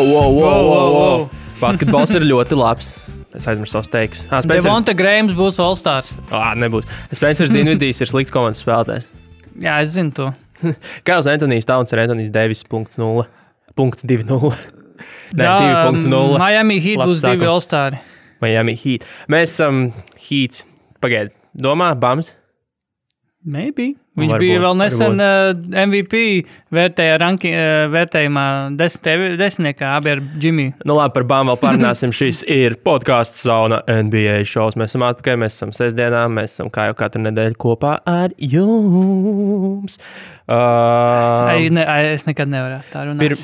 Wow. Basketbols ir ļoti labs. Es aizmirsu savus teikus. Devonta Grahams būs All-Stars. Nebūs. Spencers Dinvidijs ir slikts komandas spēlētājs. Jā, es zinu to. Karls Antonijs Towns ir Antonijs Davis .0. 2.0. Jā, 2.0. Miami Heat būs 2 All-Stari. Miami Heat. Mēs esam Heats. Pagaid, domā, Bams? Maybe. Viņš bija vēl nesen MVP vērtējumā desmitniekā abi ar Jimmy. Nu labi, par Bam vēl parunāsim. Šis ir podcasts Sauna NBA šovs. Mēs esam atpakaļ, mēs esam sestdienā, mēs esam kā jau katru nedēļu kopā ar jums. Es nekad nevarētu tā runāt.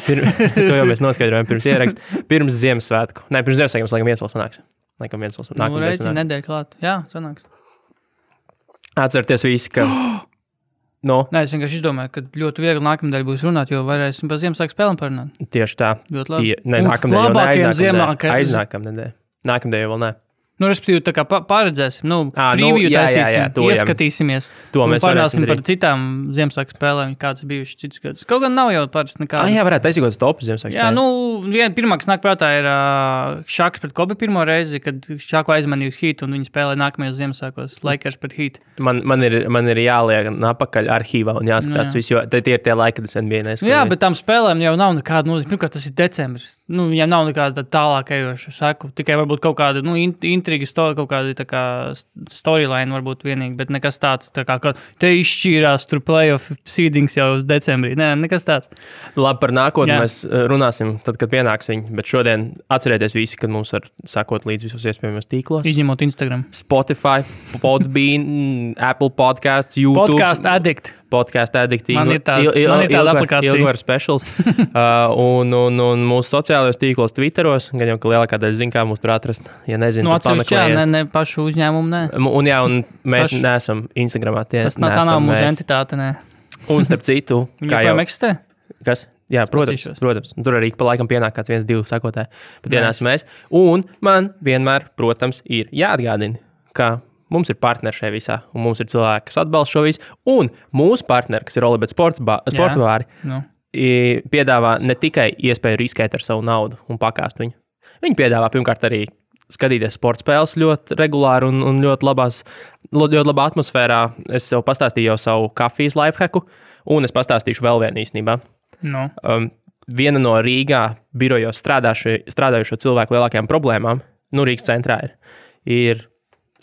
To jau mēs noskaidrojam pirms ieraksta. Pirms Ziemassvētku. Pirms Ziemassvētku mums laikam viens vēl sanāks. Nedēļa klāt. Jā, sanāks. Atcerieties visi, ka... No. Nē, es vienkārši izdomāju, ka ļoti viegli nākamnedēļ būs runāt, jo varēsim par Ziemassvētku spēlēm parunāt. Tieši tā. Ļoti labi. Nākamnedēļ jau ne, aiznākamnedēļ. Nākamnedēļ jau vēl ne. Nu, respektīvi, tā kā paredzēsim, preview taisīsim, ieskatīsimies. To mēs parunāsim par citām Ziemassvētku spēlēm, kādas bijušas citus gadus. Kaut gan nav jau parasti nekāda. Jā, varētu taisīt kaut topu Ziemassvētku spēlēm. Jā, pirmā, kas nāk prātā, ir Šaks pret Kobe pirmo reizi, kad Šaku aizmanīja uz Heat, un viņi spēlē nākamajos Ziemassvētkos Lakers pret Heat. Man ir jāliek apakaļ arhīvā un jāskatās visu, jo tie ir tie laiki, kad es NBA neskatīju. Jā, bet tām spēlēm jau nav nekāda nozīme. Pirmkārt, tas ir decembris. Viņam nav nekāda tālāk ejoša seku. Tikai varbūt kaut kāda, intriga, kaut kāda tā kā storyline varbūt vienīgi, bet nekas tāds, tā kā te izšķīrās tur playoff seedings jau uz decembrī. Nē, nekas tāds. Labi, par nākotni mēs runāsim tad, kad pienāks viņi, bet šodien atcerieties visi, kad mums var sakot līdz visos iespējamos tīklos. Izņemot Instagram. Spotify, Podbean, Apple Podcasts, YouTube. Podcast Addict. Man ir tāda aplikācija. Ilgvar specials. un mūsu sociālajos tīklos, Twitteros, gan jau, ka lielākā daļa zina, kā mūs tur atrast. Ja nezinu, tad pameklējiet. Ne pašu uzņēmumu, ne. Un mēs neesam Instagramā. Tā nav mūsu entitāte, ne. Un starp citu, kā jau eksistē? Kas? Jā, protams. Tur arī pa laikam pienāk kāds 1-2 sakotāji. Bet dienās mēs. Un man vienmēr, protams, ir jāatgādina, ka mums ir partneri šajā visā, un mums ir cilvēki, kas atbalsta šo visu. Un mūsu partneri, kas ir Olibet sportbāri, piedāvā ne tikai iespēju riskēt ar savu naudu un pakāst viņu. Viņi piedāvā pirmkārt arī skatīties sporta spēles ļoti regulāri un ļoti labā atmosfērā. Es jau pastāstīju jau savu kafijas lifehacku, un es pastāstīšu vēl vienu īstenībā. No. Viena no Rīgā birojos strādājušo cilvēku lielākajām problēmām, Rīgas centrā ir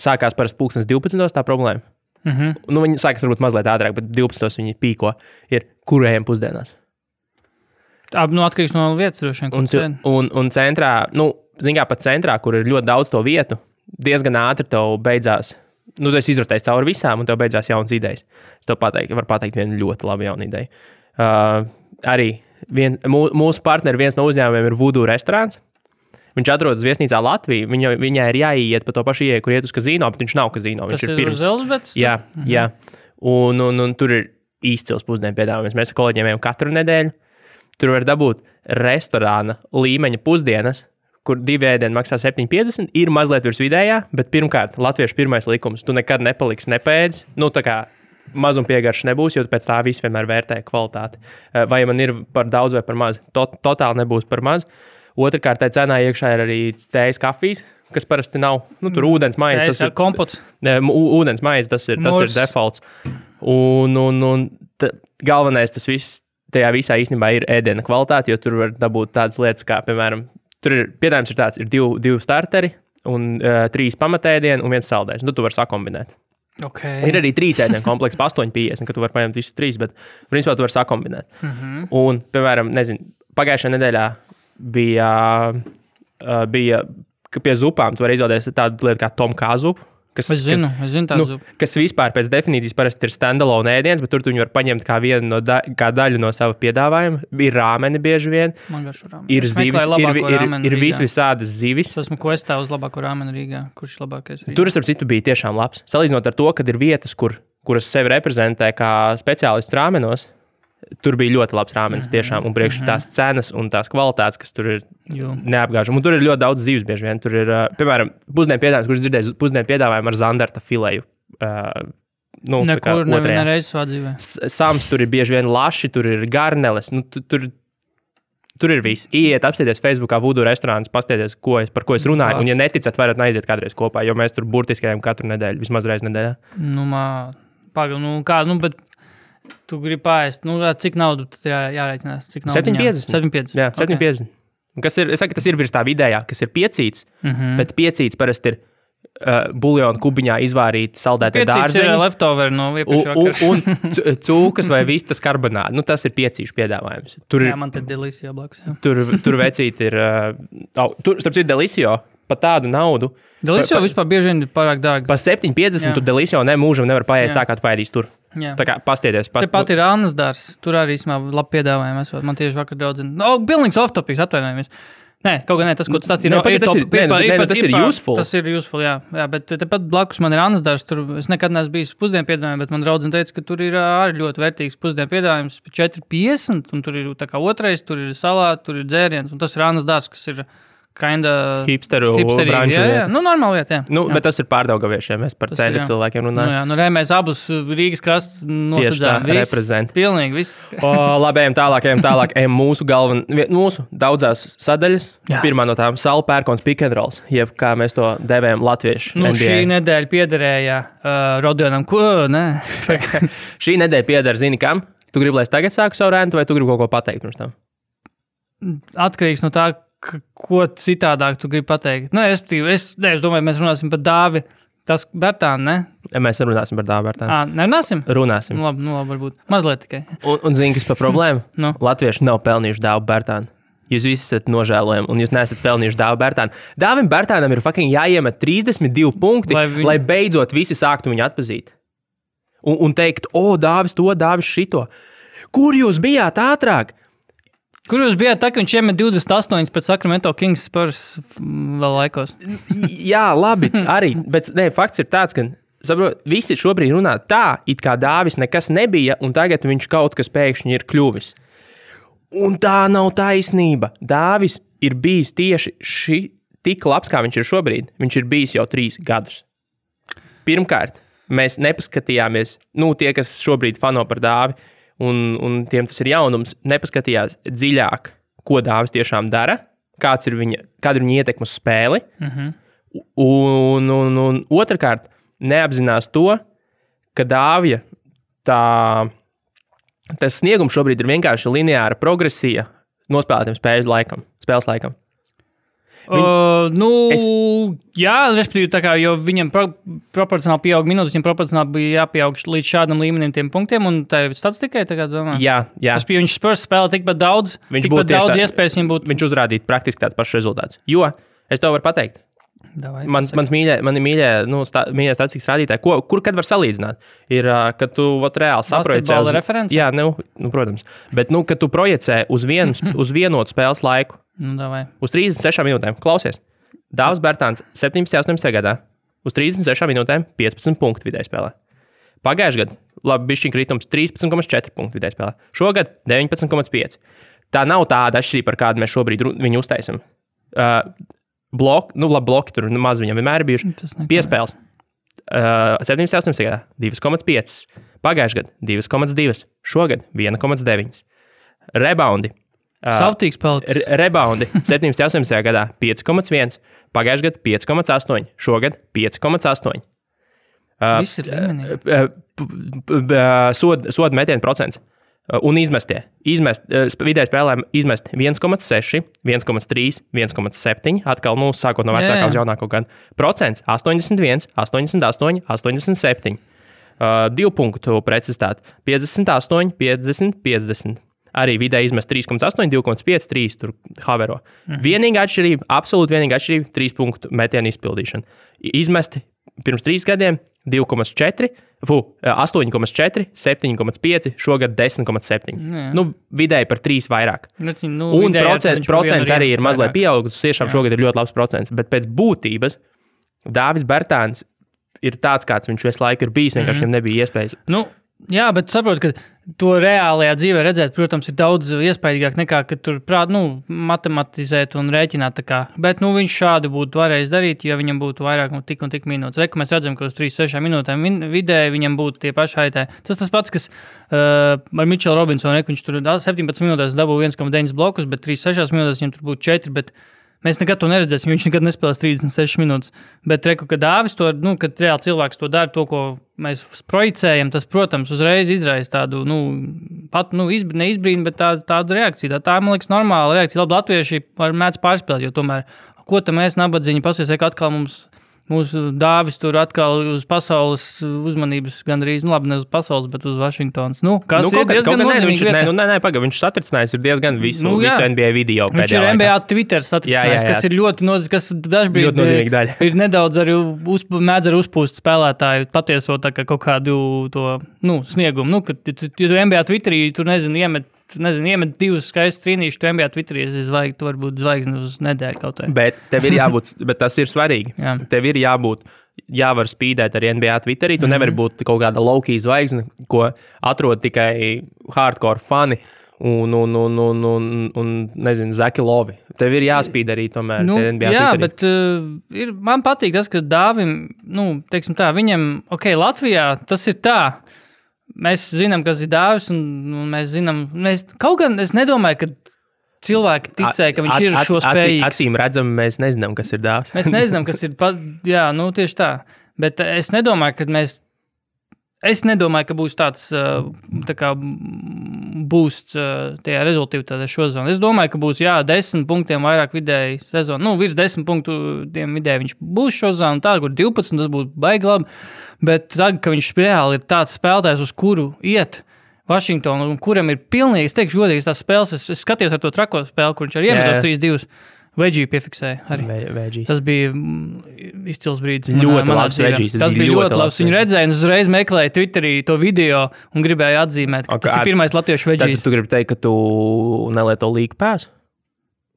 sākās parasti 12:00 tā problēma. Viņi sākās varbūt mazliet ātrāk, bet 12:00 viņi pīko. Ir kurējiem pusdienās. Atkarīgs no vietas droši vien. Un centrā, zin kā pat centrā, kur ir ļoti daudz to vietu, diezgan ātri tev beidzās. Tu esi izrotējis cauri visām, un tev beidzās jaunas idejas. Es tev varu pateikt vienu ļoti labu jaunu ideju. Arī mūsu partneri, viens no uzņēmumiem ir Voodoo restorāns. Viņš atrodas viesnīcā Latvijā. Viņai ir jāiet pa to pašu ieeju, kur iet uz kazino, bet viņš nav kazino. Tas ir pirms Zelzbets? Jā. Un tur ir izcils pusdienu piedāvājums. Mēs ar kolēģiem ejam katru nedēļu. Tur var dabūt restorāna līmeņa pusdienas, kur 2 ēdieni maksā 7,50. Ir mazliet virs vidējā, bet pirmkārt, latviešu pirmais likums. Tu nekad nepaliksi nepēdis. Tā kā mazumpiegāršs nebūs, jo pēc tā viss vienmēr vērtē kvalitāti. Vai man ir par daudz vai par maz? Totāli nebūs par maz. Otrkārt, tā cenā iekšā ir arī tējas kafijas, kas parasti nav. Tur ūdens maize. Tas ir kompots. Ūdens maize, tas ir defaults. Un galvenais tas viss, tajā visā īstenībā ir ēdiena kvalitāte, jo tur var dabūt tādas lietas, kā, piemēram, tur ir piedāvājums ir tāds, ir 2 starteri un 3 pamatēdieni un 1 saldējums. Tu vari sakombinēt. Okay. Ir arī 3 ēdienu komplekss, 8,50, ka tu vari paņemt visus 3, bet principā tu vari sakombinēt. Un, piemēram, pagājušajā nedēļā bija ka pie zupām tu vari izvēlēties tādu lietu kā Tom Kā zupu. Es zinu tādu zupu. Kas vispār pēc definīcijas parasti ir standalone ēdiens, bet tur tu viņu var paņemt kā vienu kā daļu no sava piedāvājuma. Ir rāmeni bieži vien. Man garšo rāmeni. Ir zivis, ir visādas zivis. Esmu questā uz labāko rāmeni Rīgā. Kurš ir labākais Rīgā? Tur, starp citu, bija tiešām labs. Salīdzinot ar to, kad ir vietas, kuras sevi reprezentē kā speciālists rāmenos, tur bija ļoti labs rāmenis tiešām, un priekš tās cenas un tās kvalitātes, kas tur ir neapgāžami. Un tur ir ļoti daudz zivis bieži vien. Tur ir, piemēram, pusdienu piedāvājums, kurš dzirdēju pusdienu piedāvājumu ar zandarta fileju. Nekur nevienreiz savā dzīvē. Sams tur ir bieži vien laši, tur ir garneles. Tur tur ir viss. Iet, apsieties Facebookā, Voodoo restorāns, pastieties, par ko es runāju. Un, ja neticat, varat aiziet kādreiz kopā, jo mēs tur burtiski ejam katru nedēļu, vismaz reizi nedēļā. Bet tu gribi pāriest, cik naudu tad jārēķinās? 7,50. Jā, 7,50. Okay. Es saku, tas ir virs tā vidējā, kas ir piecīts, bet piecīts parasti ir buljona kubiņā izvārīti saldētie dārzeņi. Piecīts ir leftover no iepriekšējā un cūkas vai vistas karbonādi. Tas ir piecīšu piedāvājums. Jā, man te Delisio blakus. Tur vecīt ir, starp citu Delisio, pa tādu naudu. Delisio vispār bieži vien ir pārāk dārgi. Pa 7,50 tu Delisio mūžam nevar paēst tā, kā tu paēdīs tur. Jā. Tā kā pastieties. Tepat ir Annas dārs, tur arī īstenībā labi piedāvājumi esot. Man tieši vakar draudzina. Pilnīgs off-topics, atvainojamies. Nē, kaut gan tas, ko tu stāstīji, tas ir useful. Tas ir useful, jā, bet tepat blakus man ir Annas dārs, tur es nekad neesmu bijis pusdienu piedāvājumā, bet man draudzene teica, ka tur ir arī ļoti vērtīgs pusdienu piedāvājums, 4,50, un tur ir tā kā otrais, tur ir salāti, tur ir dzēriens, un tas ir Annas dārs, kas ir hipsteru branču. Jā. Normāli vieta, jā. Bet tas ir Pārdaugaviešiem, mēs par ceļu cilvēkiem runājam. Mēs abus Rīgas krasts nosadzām. Reprezent. Pilnīgi viss. Labi, ejam tālāk. Mūsu daudzās sadaļas. Jā. Pirmā no tām Saula Pērkons pick and rolls, jeb kā mēs to devējam latviešu NBA. Šī nedēļa piederēja Rodionam. Šī nedēļa pieder, zini kam? Tu gribi, lai es tagad sāku savu rēntu, vai tu gribi kaut ko pateikt pirms tam? Atkarīgs no tā, ko citādāk tu gribi pateikt? Es domāju, mēs runāsim par Dāvi. Tas Bertānu, ne? Mēs runāsim par Dāvi Bertānu. Nerunāsim? Runāsim. Labi, varbūt. Mazliet tikai. Un zini, kas par problēmu? Latvieši nav pelnījuši Dāvu Bertānu. Jūs visi esat nožēlojami, un jūs neesat pelnījuši Dāvu Bertānu. Dāvim Bertānam ir fucking jāiemet 32 punkti, lai beidzot visi sāktu viņu atpazīt. Un teikt, Dāvis to, Dāvis šito. Kur jūs bijāt ātrāk? Kur jūs bijāt tā, ka viņš iemet 28 pēc Sacramento Kings Spurs vēl laikos? Jā, labi, arī. Bet fakts ir tāds, ka visi šobrīd runā tā, it kā Dāvis nekas nebija, un tagad viņš kaut kas pēkšņi ir kļuvis. Un tā nav taisnība. Dāvis ir bijis tieši tik labs, kā viņš ir šobrīd. Viņš ir bijis jau 3 gadus. Pirmkārt, mēs nepaskatījāmies, tie, kas šobrīd fano par Dāvi, un tiem tas ir jaunums, nepaskatījās dziļāk, ko Dāvis tiešām dara, kāda ir viņa ietekme uz spēli, un otrkārt neapzinās to, ka Dāvija tas sniegums šobrīd ir vienkārši lineāra progresija nospēlētiem spēles laikam. Jā, respektīvi, tā kā, jo viņam proporcionāli pieaug minūtes, viņam proporcionāli bija jāpieaug līdz šādam līmenim tiem punktiem, un tā ir statistikai, tā kā domā. Jā. Viņš Spurs spēlē tikpat daudz iespējas viņam būtu. Viņš uzrādītu praktiski tāds pašs rezultāts. Jo, es tev varu pateikt, mani mīļie statistikas rādītāji, kur kad var salīdzināt, ir, kad tu reāli saprojecē. Basketbola referenci? Jā, protams. Bet, kad tu projecē uz vienotu spēles laiku, uz 36 minūtēm, klausies, Dāvis Bertāns 17-18 gadā, uz 36 minūtēm 15 punktu vidēji spēlē. Pagājušajā gadā, bišķiņ kritums 13,4 punktu vidēji spēlē. Šogad 19,5. Tā nav tāda atšķirība, par kādu mēs šobrīd viņu uztaisam. Bloki tur maz viņam vienmēr ir bijuši. Piespēles. 17-18 gadā 2,5. Pagājušajā gadā 2,2. Šogad 1,9. Rebaundi. Savtīgs paliks. Rebaundi 17-18 gadā 5,1. Pagājušajā gadā 5,8. Šogad 5,8. Viss ir līmenī. Soda metienu procents. Un vidēji spēlēm izmest 1,6, 1,3, 1,7, atkal sākot no vecākā uz jaunāko gadu. Procents 81, 88, 87. 2 punktu precizitāte 58, 50, 50. Arī vidēji izmest 3,8, 2,5, 3 tur havero. Vienīgā atšķirība, absolūti vienīgā atšķirība 3 punktu metienu izpildīšana. Izmesti pirms 3 gadiem 2,4, 8,4, 7,5, šogad 10,7. Vidēji par 3 vairāk. Un procents arī ir mazliet pieaugusi. Tiešām šogad ir ļoti labs procents. Bet pēc būtības Dāvis Bertāns ir tāds, kāds viņš visu laiku ir bijis. Vienkārši viņam nebija iespējas. Jā, bet saprotu, ka to reālajā dzīvē redzēt, protams, ir daudz iespaidīgāk nekā, ka tur matematizēt un rēķināt tā kā. Bet, viņš šādi būtu varējis darīt, ja viņam būtu vairāk tik un tik minūtes. Reku mēs redzam, ka uz 3-6 minūtēm vidēji viņam būtu tie paši haitē. Tas pats, kas ar Mitchell Robinsonu, viņš tur 17 minūtēs dabū 1,9 blokus, bet 3-6 minūtēs viņam tur būtu 4, bet mēs nekad to neredzēsim, viņš nekad nespēlēs 36 minūtes. Bet reku, kad Dāvis to, kad reāli cilvēks to dara, to, ko mēs projicējam, tas, protams, uzreiz izraisa tādu, neizbrīnu, bet tādu reakciju. Tā, man liekas, normāla reakcija. Labi, latvieši mēdz pārspēlēt, jo tomēr, ko tam mēs nabadzīņi pasies, ka atkal mūsu Dāvis tur atkal uz pasaules uzmanības gandrīz, labi, ne uz pasaules, bet uz Vašingtonas. Ir diezgan nozīmīgi vieta. Nē, viņš satricinājis ir diezgan visu NBA video pēdējā viņš ir laikā. NBA Twitter satricinājis, kas ir ļoti nozīmīgi, kas dažbrīd nozīmīgi daļa. Ir nedaudz arī mēdz ar uzpūst spēlētāju patieso tā kā kaut kādu to, sniegumu. Kad tu NBA Twitterī, tur iemet 2 skaistus trīnīšus, tu NBA Twitterī zvaigzni, tu varbūt zvaigzni uz nedēļu kaut kā. Bet tev ir jābūt, bet tas ir svarīgi. Jā. Tev ir jāvar spīdēt arī NBA Twitterī, tu nevari būt kaut kāda low-key zvaigzne, ko atrod tikai hardcore fani un nezinu, Zaki Lovi. Tev ir jāspīd arī tomēr NBA jā, Twitterī. Bet man patīk tas, ka Dāvim, teiksim tā, viņam, Latvijā tas ir tā, mēs zinām, kas ir Dāvis, un mēs zinām, kaut gan es nedomāju, ka cilvēki ticēja, ka viņš ir šo spējīgs. Acīm redzam, mēs nezinām, kas ir Dāvis. Mēs nezinām, kas ir, tieši tā. Bet es nedomāju, ka būs tāds tā kā boosts tajā rezultātā šozonu. Es domāju, ka būs 10 punktiem vairāk vidēji sezonu. Virs 10 punktiem vidēji viņš būs šozonu, tā, kur 12, tas būtu baigi labi. Bet tagad, ka viņš reāli ir tāds spēlētājs, uz kuru iet Vašingtonu, un kuram ir pilnīgi, es teikšu godīgi, tās spēles, es skatījos ar to trako spēli, kur viņš arī iemetos 3-2. Veģiju piefiksēja arī. Veģijas. Tas bija izcils brīdis. Ļoti labs veģijas. Tas bija ļoti labs. Viņu redzēja un uzreiz meklēja Twitterī to video un gribēja atzīmēt, ka tas ir pirmais latviešu veģijas. Tad tu gribi teikt, ka tu nelieto league pass?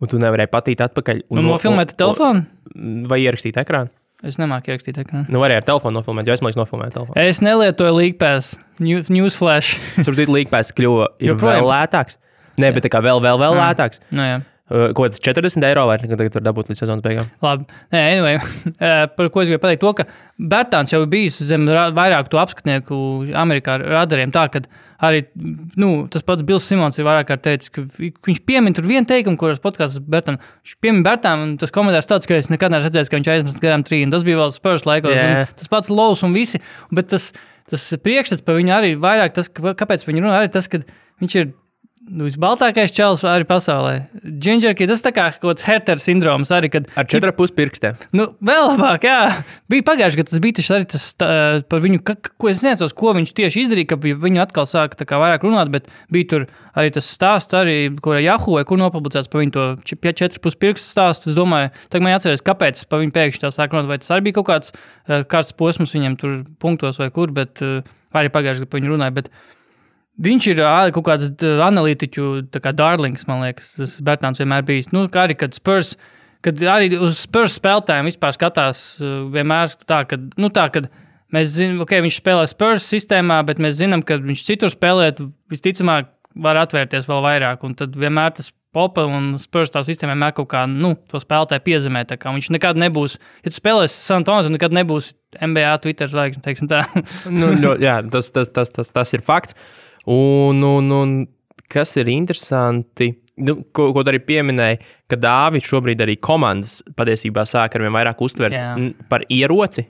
Un tu nevarēji patīt atpakaļ? Un nofilmēt telefonu? Vai ierakstīt ekrānu? Es nemāku ierakstīt ekrānu. Varēja ar telefonu nofilmēt, jo es liekas nofilmēt telefonu. Es nelietoju league pass. Newsflash. Sapratu, league pass kļuva vēl lētāks. Nē, bet tā kā vēl lētāks. Jā. Ko tas 40 eiro vai tagad var dabūt līdz sezonas beigām? Labi. Anyway, par ko es gribēju pateikt to, ka Bertāns jau bijis zem vairāk to apskatnieku Amerikā radariem tā, ka arī, tas pats Bills Simons ir vairāk kārt teicis, ka viņš piemin tur vienu teikumu, kuras podkāsts Bertānu. Viņš piemin Bertānu, un tas komentārs tāds, ka es nekad neesmu redzējis, ka viņš aizmest garām trīnu. Tas bija vēl Spurs laikos. Tas pats Lows un visi, bet tas priekšstats par viņu arī vairāk, tas, kāpēc viņi runā, arī tas, ka viņš ir visbaltākais čels arī pasaulē. Gingerkī, tas tā kā kaut kāds Herter sindroms arī, kad... Ar 4,5 pirkstiem. Vēl labāk, jā. Bija pagājuši, ka tas bija tieši arī tas par viņu, ko es neatceros, ko viņš tieši izdarīja, ka viņu atkal sāka tā kā vairāk runāt, bet bija tur arī tas stāsts arī, kur Yahoo, kur nopublicēts par viņu to 4,5 pirkstu stāstu. Es domāju, tagad man jāatceries, kāpēc par viņu pēkšņi tā sāk runāt, vai tas arī bija kaut kāds karsts posms viņam tur punktos vai kur, bet arī pagājuši, ka par viņu runāja, bet viņš ir kaut kāds analītiķu darlings, man liekas, tas Bertāns vienmēr bijis. Kā arī, kad arī uz Spurs spēlētājiem vispār skatās vienmēr tā, kad mēs zinām, viņš spēlē Spurs sistēmā, bet mēs zinām, ka viņš citur spēlēt, visticamāk var atvērties vēl vairāk, un tad vienmēr tas Popa un Spurs tā sistēma vienmēr kaut kā, to spēlētāju piezemē, tā kā viņš nekad nebūs, ja tu spēlēsi San Antonio, tu nekad nebūs NBA Twitter zvaigzne, teiksim tā. Jā, tas ir fakts. Un kas ir interesanti, ko arī pieminēja, ka Dāvis šobrīd arī komandas patiesībā sāk ar vien vairāk uztvert par ieroci.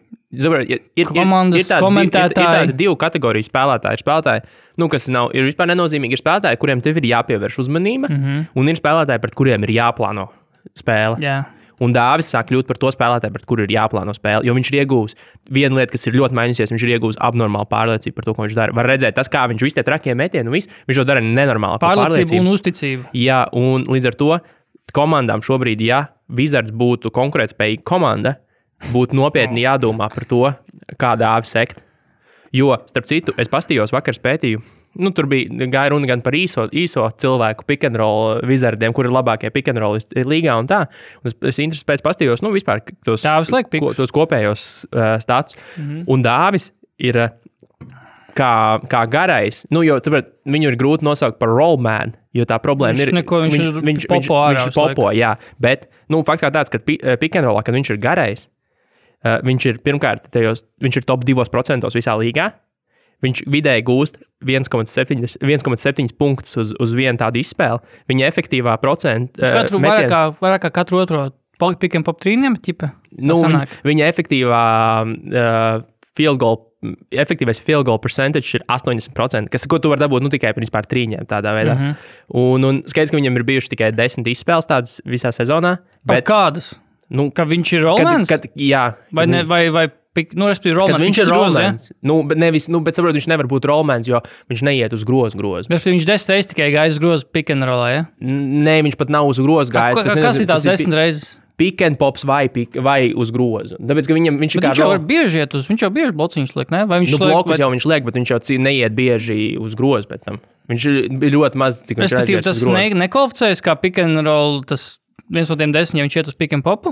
Komandas komentētāji. Ir tādi 2 kategoriju spēlētāji. Ir spēlētāji, kas ir vispār nenozīmīgi. Ir spēlētāji, kuriem tev ir jāpievērš uzmanība, un ir spēlētāji, pret kuriem ir jāplāno spēle. Jā. Un Dāvis sāk kļūt par to spēlētāju, pret kuru ir jāplāno spēle, jo viņš ir iegūs viena lieta, kas ir ļoti mainījusies, viņš ir iegūs abnormālu pārliecību par to, ko viņš dara. Var redzēt, tas, kā viņš visu tie trakie metieni, viņš to dara nenormāli. Pārliecību un uzticību. Jā, un līdz ar to komandām šobrīd, ja Wizards būtu konkurētspējīga komanda, būtu nopietni jādomā par to, kā Dāvis sekt. Jo, starp citu, es pastījos vakar spētīju, tur gāja runa gan par īso cilvēku pick and roll Wizardiem, kur ir labākie pick and roll līgā un tā. Un es intereses pēc pastījos, vispār tos kopējos status. Un Dāvis ir kā garais, jo viņu ir grūti nosaukt par rollman, jo tā problēma viņš ir popo, jā, bet, fakts kā tāds, ka pick and rollā, kad viņš ir garais, viņš ir pirmkārt, viņš ir top 2% visā līgā, viņš vidēji gūst 1,7 punktus uz vienu tādu izspēli, viņa efektīvā procenta... Vairāk kā katru otro pick and pop trīniem, ķipa? Viņa efektīvā efektīvais field goal percentage ir 80%, ko tu vari dabūt tikai par trīņiem tādā veidā. Un skaidrs, ka viņam ir bijuši tikai 10 izspēles tādas visā sezonā. Bet kādas? Ka viņš ir rollmans? Jā. Respektīvi rollmans. Viņš ir rollmans. Bet saprot, viņš nevar būt rollmans, jo viņš neiet uz grozu. Respektīvi, viņš 10 reizes tikai gājas uz grozu pick and rollā, ja? Nē, viņš pat nav uz grozu gājis. Kas ir tās 10 reizes? Pick and pops vai uz grozu. Tāpēc, ka viņš jau var bieži iet uz, viņš jau bieži blociņus liek, ne? Vai viņš blokus jau viņš liek, bet viņš jau neiet bieži uz grozu pēc tam. Viņš ir ļoti maz, cik viņš aizies uz grozu. Tas nekvalificējas kā pick and roll, tas viens no tiem 10, ja viņš iet uz pick and popu?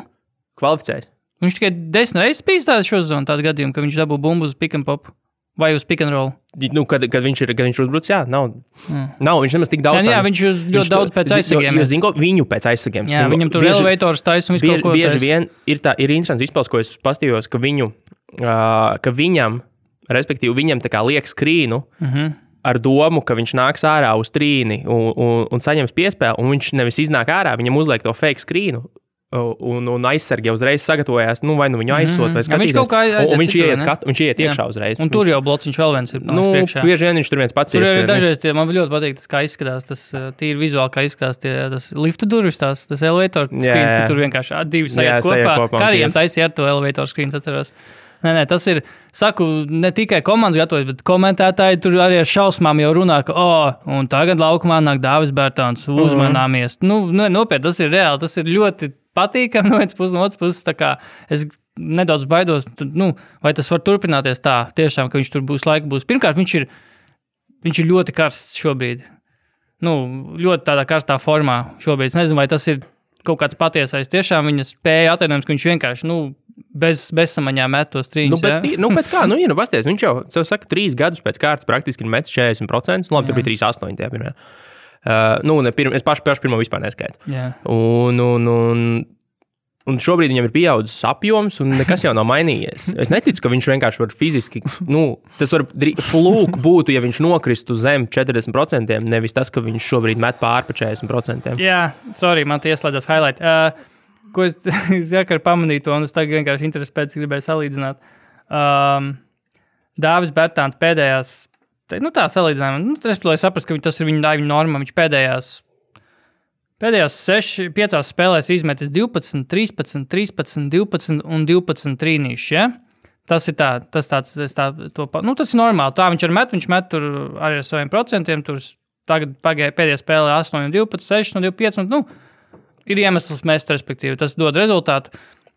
Kvalificējas. Viņš tikai 10 reizes bijis šo zonu, tādu gadījumu, ka viņš dabū bumbu uz pick and popu. Vai uz pick and roll? Kad viņš uzbruc, jā, nav. Viņš nemaz tik daudz. Jā, viņš ļoti daudz pēc aizsargiem. Viņu pēc aizsargiem. Jā, viņam tur elevators taisa un visu kaut ko taisa. Bieži vien ir interesants izpils, ko es pastījos, ka viņam, respektīvi viņam tā kā liek skrīnu ar domu, ka viņš nāks ārā uz trīni un saņems piespēli, un viņš nevis iznāk ārā, viņam uzliek to fake skrīnu. Un aizsargi jau uzreiz sagatavojās, vai viņu aizsot, vai skatīties. Viņš kaut kā aiziet citur, viņš iet iekšā uzreiz. Un tur jau blociņš vēl viens ir priekšā. Bieži vien viņš tur viens pats ieskrien. Dažreiz man ļoti patīk tas, kā izskatās, tas tīri vizuāli, kā izskatās tas lifta durvis, tas elevator screens, ka tur vienkārši divi sajiet kopā. Kariem taisīja ar to elevator screens, atceros. Nē, tas ir, saku, ne tikai komandas gatavojas, bet komentētāji tur arī ar šausmām jau runā, ka, un tagad laukumā nāk Dāvis Bērtāns, uzmanāmies. Nopietni, tas ir reāli, tas ir ļoti patīkami no otras puses, tā kā es nedaudz baidos, vai tas var turpināties tā, tiešām, ka viņš tur būs. Pirmkārt, viņš ir ļoti karsts šobrīd. Ļoti tādā karstā formā šobrīd. Es nezinu, vai tas ir kaut kāds patiesais. Tiešām viņa spēja atainojums, ka viņš vienkārši, bezsamaņā met tos trīņus. Bet kā, pasties, viņš jau, saka, 3 gadus pēc kārtas praktiski ir metis 40%, labi, tur bija 3,8 tajā pirmajā. Es pašu pirmo vispār neskaitu. Un šobrīd viņam ir pieaudzis apjoms, un nekas jau nav mainījies. Es neticu, ka viņš vienkārši var fiziski, tas var flūk būtu, ja viņš nokristu zem 40%, nevis tas, ka viņš šobrīd met pār pa 40%. Jā, sorry, man ieslēdzās highlight. Ko es jākar pamanīju to, un es tagad vienkārši interesi pēc gribēju salīdzināt. Dāvis Bērtāns pēdējās, tā salīdzinājuma, respektīvi saprast, ka tas ir viņa norma, viņš pēdējās 5 spēlēs izmetis 12, 13, 13, 12 un 12 trīnīši, ja? Tas ir tas ir normāli, tā viņš met tur arī ar saviem procentiem, tur tagad pēdējā spēlē 8 un 12, 6 un 25, un, ir iemesls mest, respektīvi, tas dod rezultātu.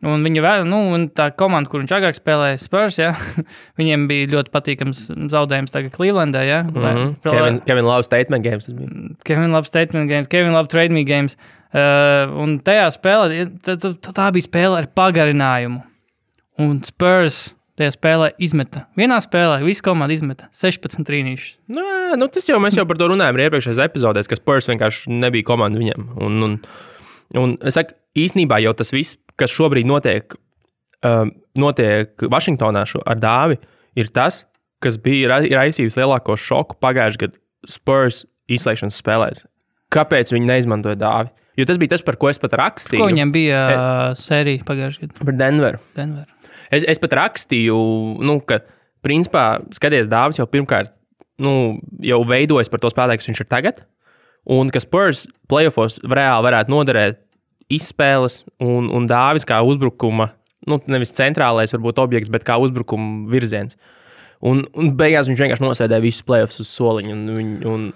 Un un tā komanda, kur viņš agrāk spēlēja Spurs, ja, viņiem bija ļoti patīkams zaudējums tagad Clevelandā, ja. Kevin Love statement games. Kevin Love statement games, Kevin Love trade me games. Un tajā spēlē, tā bija spēle ar pagarinājumu. Un Spurs tajā spēlē izmeta. Vienā spēlē visa komanda izmeta 16 trīnīšus. Mēs jau par to runājām iepriekšējās epizodēs, ka Spurs vienkārši nebija komanda viņam. Un es saku, īsnībā jau tas viss, kas šobrīd notiek Vašingtonā ar Dāvi, ir tas, kas bija raisījis lielāko šoku pagājušajā gadā Spurs izslēgšanas spēlēs. Kāpēc viņi neizmantoja Dāvi? Jo tas bija tas, par ko es pat rakstīju. Ko viņam bija sērija pagājušajā gadā? Par Denveru. Es pat rakstīju, ka principā skaties Dāvis jau pirmkārt jau veidojas par to spēlētāju, kas viņš ir tagad, un ka Spurs playoffos reāli varētu noderēt izspēles un Dāvis kā uzbrukuma, nevis centrālais varbūt objekts, bet kā uzbrukuma virziens. Un beigās viņš vienkārši nosēdēja visus playoffs uz soliņu, un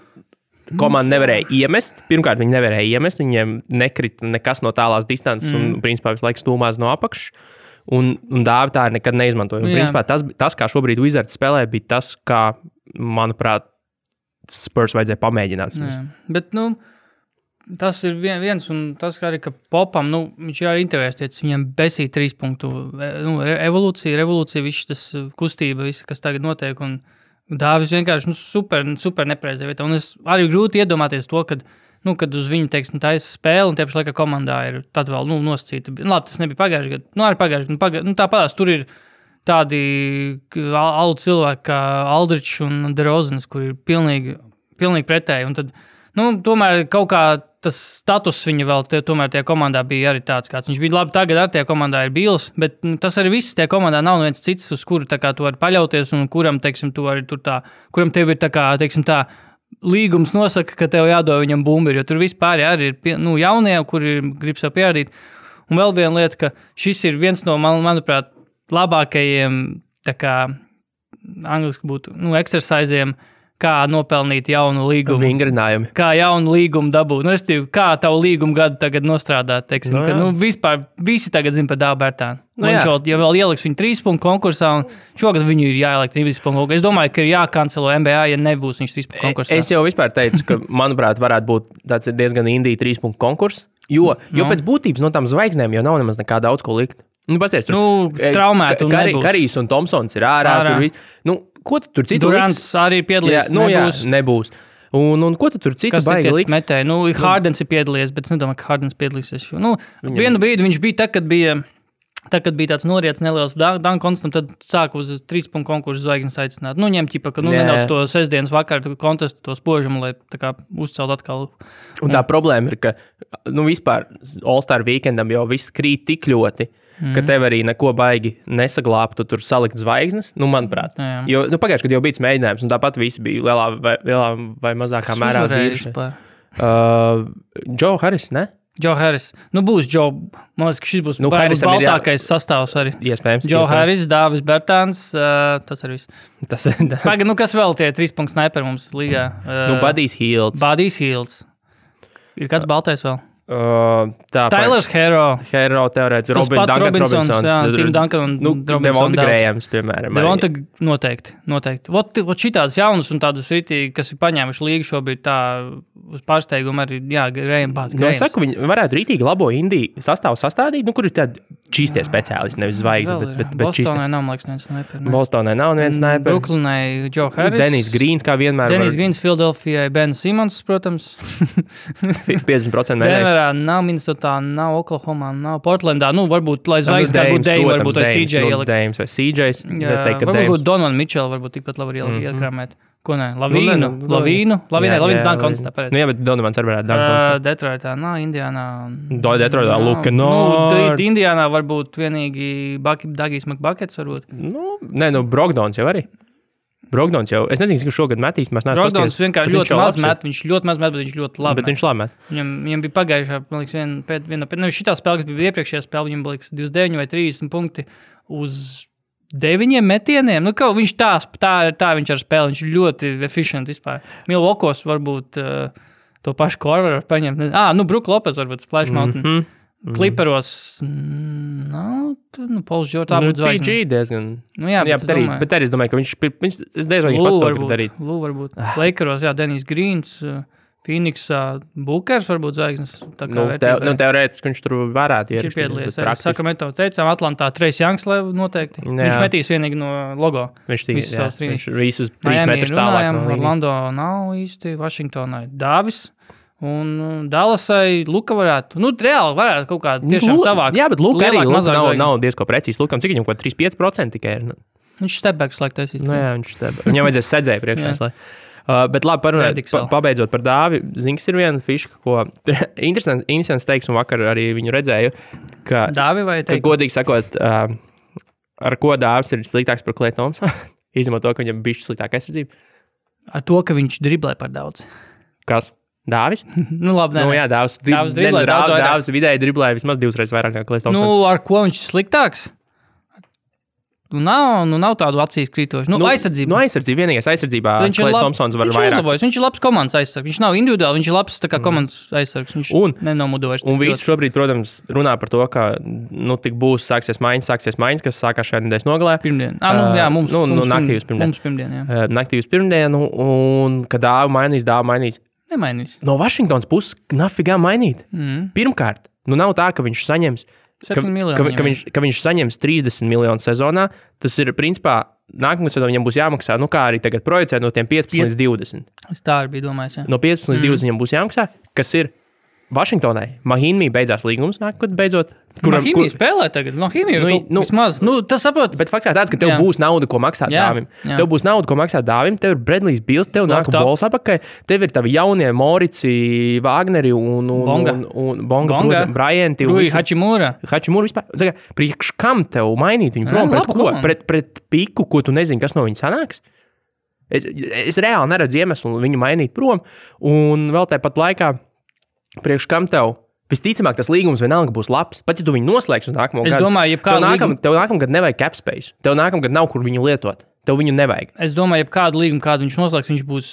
komanda nevarēja iemest. Pirmkārt, viņi nevarēja iemest, viņiem nekrita nekas no tālās distances, un principā visu laiku stūmās no apakšas. Un Dāvi tā nekad neizmantoja. Un, principā, tas, kā šobrīd Wizards spēlē, bija tas, kā, manuprāt, Spurs vajadzēja pamēģināt. Bet, tas ir viens, un tas, kā arī, ka Popam, viņš ir arī interesēts, viņam besīja 3 punktu, revolūcija, viss tas kustība, viss, kas tagad notiek, un Dāvis vienkārši super nepreizē vietā. Un es arī grūti iedomāties to, kad uz viņu, teiksim, taisa spēle, un tieši laikā komandā ir tad vēl, nosacīta. Labi, tas nebija pagājuši gadu. Arī pagājuši gadu. Tāpēc tur ir tādi alu cilvēki kā Aldričs un DeRozans, kur ir pilnīgi pretēji. Un tad, tomēr kaut kā tas status viņa vēl tomēr tajā komandā bija arī tāds, kāds viņš bija. Labi, tagad ar tajā komandā ir Bīls, bet tas arī viss tajā komandā nav viens cits, uz kuru tā kā tu vari paļauties un kuram, teiksim, tu arī tur tā, kuram tev ir tā kā, teiksim, tā līgums nosaka, ka tev jādod viņam bumbiri, jo tur vispār arī ir jaunie, kuri grib sev pierādīt. Un vēl viena lieta, ka šis ir viens no, manuprāt, labākajiem, tā kā angliski būtu, exerciziem, kā nopelnīt jaunu līgumu. Vingrinājumi. Kā jaunu līgumu dabūt. Kā tavu līgumu gadu tagad nostrādāt, teiksim. Ka, vispār visi tagad zina par Dāvu Bērtānu. Ja vēl ieliks viņu 3 punktu konkursā, un šogad viņu ir jāielikt 3 punktu konkursā. Es domāju, ka ir jākancelo NBA, ja nebūs viņš 3 punktu konkursā. Es jau vispār teicu, ka, manuprāt, varētu būt tāds diezgan indīgi 3 punktu konkurss, jo pēc būtības no tām zvaigznēm jau nav nemaz nekā daudz ko likt. Pasties, traumēt un nebūs. Karijs un Tomsons ir ārā. Ko tu tur citu Durants arī piedalījies, nebūs. Un ko tu tur citu baigi liks? Metēji? Hardens ir piedalījies, bet es nedomāju, ka Hardens piedalīsies. Vienu brīdi viņš bija kad bija tāds noriets neliels Dunk Constant, tad sāka uz 3 punktu konkursu zvaigznes aicināt. Ņem ķipa, ka nedaudz to sestdienas vakaru kontestu, to spožumu, lai tā kā uzcelt atkal. Un tā problēma ir, ka vispār All-Star weekendam jau viss krīt tik ļoti, ka tev arī neko baigi nesaglābtu tur salikt zvaigznes, manuprāt. Jo pagājuši, kad jau bija mēģinājums, un tāpat visi bija lielā vai mazākā mērā vīruši. Joe Harris, ne? Joe Harris. Būs Joe. Man liekas, ka šis būs baltākais sastāvs arī. Iespējams. Joe Harris, Dāvis Bērtāns, tas arī viss. Pagaid, kas vēl tie 3 punktu sniperi mums līgā? Buddy's Hields. Ir kāds baltais vēl? Tylers Hero teorētiski, Robinsons, Tim Duncan un Devonta Grējams, piemēram. Devonta noteikti. Vot šitādas jaunas un tādas ritīgi, kas ir paņēmuši līgu šobrīd tā uz pārsteigumu arī, Grējam pārst. Es saku, viņi varētu ritīgi labo indiju sastāvu sastādīt, kur ir tādi čistie speciālisti, nevis zvaigznes, bet Bostonai nav, man liekas, neviens sniper. Bostonai nav neviens sniper. Brooklynai Joe Harris. Dennis Greens, kā vienmēr. Dennis Greens, Philadelphijai Ben Simmons, protams. 50% mēnēs. Nav Minnesotā, nav Oklahomā, nav Portlandā. Varbūt, lai zvaigznes kā būtu Dame, varbūt vai CJ ielikt. Dames vai CJs. Varbūt Donovan Mitchell, varbūt tikpat labi iekrāmēt. Ko ne? Lavīnu, Dunk Constant. Bet Donovans arī varētu Dunk Constant. Detroitā, Indiānā. Detroitā, Luka Nord. Indiānā varbūt vienīgi Dagijs McBuckets varbūt. Brogdons jau arī. Brogdons jau, es nezinu, cik šogad metīs, mēs neesam pasties. Brogdons vienkārši ļoti maz met, viņš ļoti maz met, bet viņš ļoti labi met. Bet viņš labi met. Viņam bija pagājušā, man liekas, šitā spēle, kas bija iepriekšējā spēle, viņam bija 29 vai 30 punkti uz 9 metieniem. Viņš tā viņš ar spēli, viņš ļoti efficient vispār. Milwaukeeos varbūt to pašu Korveru paņemt. Brook Lopez varbūt Splash Mountain. Clipperos Pauls George, tā būtu zvaigzne. PG diezgan. Bet arī es domāju, ka viņš es diezgan viņš pats to grib darīt. Varbūt. Lakeros, Dennis Greens, Phoenixā, Bookers varbūt zvaigznes. Teorētiski viņš tur varētu ierist. Viņš ir piedalījies. Sacramento teicām, Atlantā Trace Youngs noteikti. Viņš metīs vienīgi no logo. Viņš visus 3 metrus tālāk. Orlando nav īsti, Washingtonai Dāvis. Un Dallasai Luka varētu, reāli varētu kaut kā tiešām savāk. Jā, bet Luka arī nav diezko precīzi. Lukam, cik viņam kaut 3-5% tikai ir? Viņš stepbacks laik taisīs. Viņš stepbacks. Viņam vajadzēs sedzēju priekšā. Bet labi, parunājot, pabeidzot par Dāvi, Zinks ir viena fiška, ko interesants teiks, un vakar arī viņu redzēju, ka, Dāvi vai ka godīgi sakot, ar ko Dāvis ir sliktāks par Klay Thompsonu, izņemot to, ka viņam bišķi sliktāka aizsardzība. Ar to, ka viņš driblē par daudz. Kas? Dāvis? Labi, jā, Dāvis vidēji driblēja vismaz 2 reizes vairāk nekā Klay Thompsons. Ar ko viņš ir sliktāks? Nav tādu acīs krītošu. Aizsardzība. Aizsardzība. Vienīgais aizsardzībā Klay Thompsons var vairāk. Viņš ir labs komandas aizsargs. Viņš nav individuāli, viņš ir labs komandas aizsargs. Viņš nenomudojas. Un visi šobrīd, protams, runā par to, ka tik būs sāksies maiņas, kas sākās šajā nedēļas nogalē. Pirmdien. Mums pirmdien. Naktī uz pirmdienu, un kad Dāvi mainīs. Nemainīs. No Vašingtonas puses nafigā mainīt. Pirmkārt, nav tā, ka viņš saņems, ka viņš saņems 30 miljonus sezonā. Tas ir, principā, nākamā sezonā viņam būs jāmaksā, kā arī tagad projicē no tiem 15 līdz 20. Es tā arī biju domājis, jā. No 15 līdz 20 viņam būs jāmaksā, kas ir Vašingtonai. Mahīnī beidzās līgums, nākamā beidzot. Mahīnī spēlē tagad. Mahīnī vismaz. Tas saprot. Bet fakts ir tāds, ka tev būs nauda, ko maksāt dāvim. Tev būs nauda, ko maksāt dāvim. Tev ir Bradley's Bills, tev nāk bols apakaļ. Tev ir tavi jaunie Morici, Wagneri un Bonga, Bryanti. Rui Hachimura vispār. Tagad, priekš kam tev mainīt viņu prom? Pret ko? Pret piku, ko tu nezini, kas no viņa sanāks? Es reāli neredzu iemeslu viņu mainīt prom. Un vēl tāpat laikā priekš kam tev? Visticamāk, tas līgums vienalga būs labs. Pat ja tu viņu noslēgsi uz nākamo gadu. Es domāju, tev nākamgad nevajag cap space. Tev nākamgad nav, kur viņu lietot. Tev viņu nevajag. Es domāju, ja kādu līgumu, kādu viņš noslēgs, viņš būs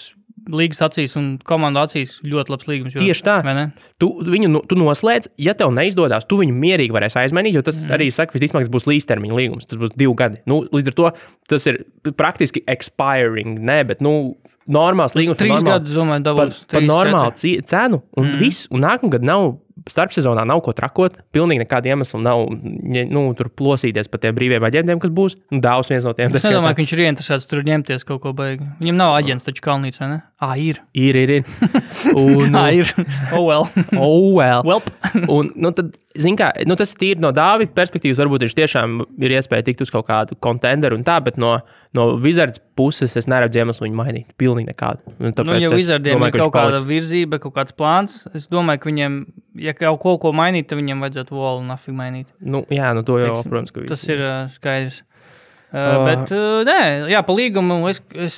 līgas acīs un komandu acīs ļoti labs līgums. Tieši tā. Tu noslēdz, ja tev neizdodas, tu viņu mierīgi varēsi aizmainīt, jo tas arī saka, visticamāk, tas būs līdztermiņa līgums. Tas būs 2 gadi. Līdz ar to tas ir praktiski expiring, bet normāls līgums. 3 gadus, domāju, dabūs. Par normālu cenu un viss. Un nākamgad nav starpsezonā nav ko trakot. Pilnīgi nekāda iemesla nav tur plosīties par tiem brīviem aģentiem, kas būs. Dāvs viens no tiem. Es nedomāju, ka viņš ir ieinteresēts tur ņemties kaut ko baigi. Viņam nav aģents taču Kalnīts, vai ne? Ir. Ir. Un, ir. Well. Un, tad, zin kā, tas ir tīri no Dāvida perspektīvas. Varbūt viņš tiešām ir iespēja tikt uz kaut kādu kontenderu un tā, bet no Wizards puses es neredzu iemeslu viņu mainīt. Pilnīgi nekādu. Ja Wizardiem ir kaut kāda virzība, kaut kāds plāns, es domāju, ka viņiem, ja kaut ko mainīt, tad viņiem vajadzētu Wall un nafig mainīt. To jau, protams, ka tas ir skaidrs. Bet, nē, pa līgumu es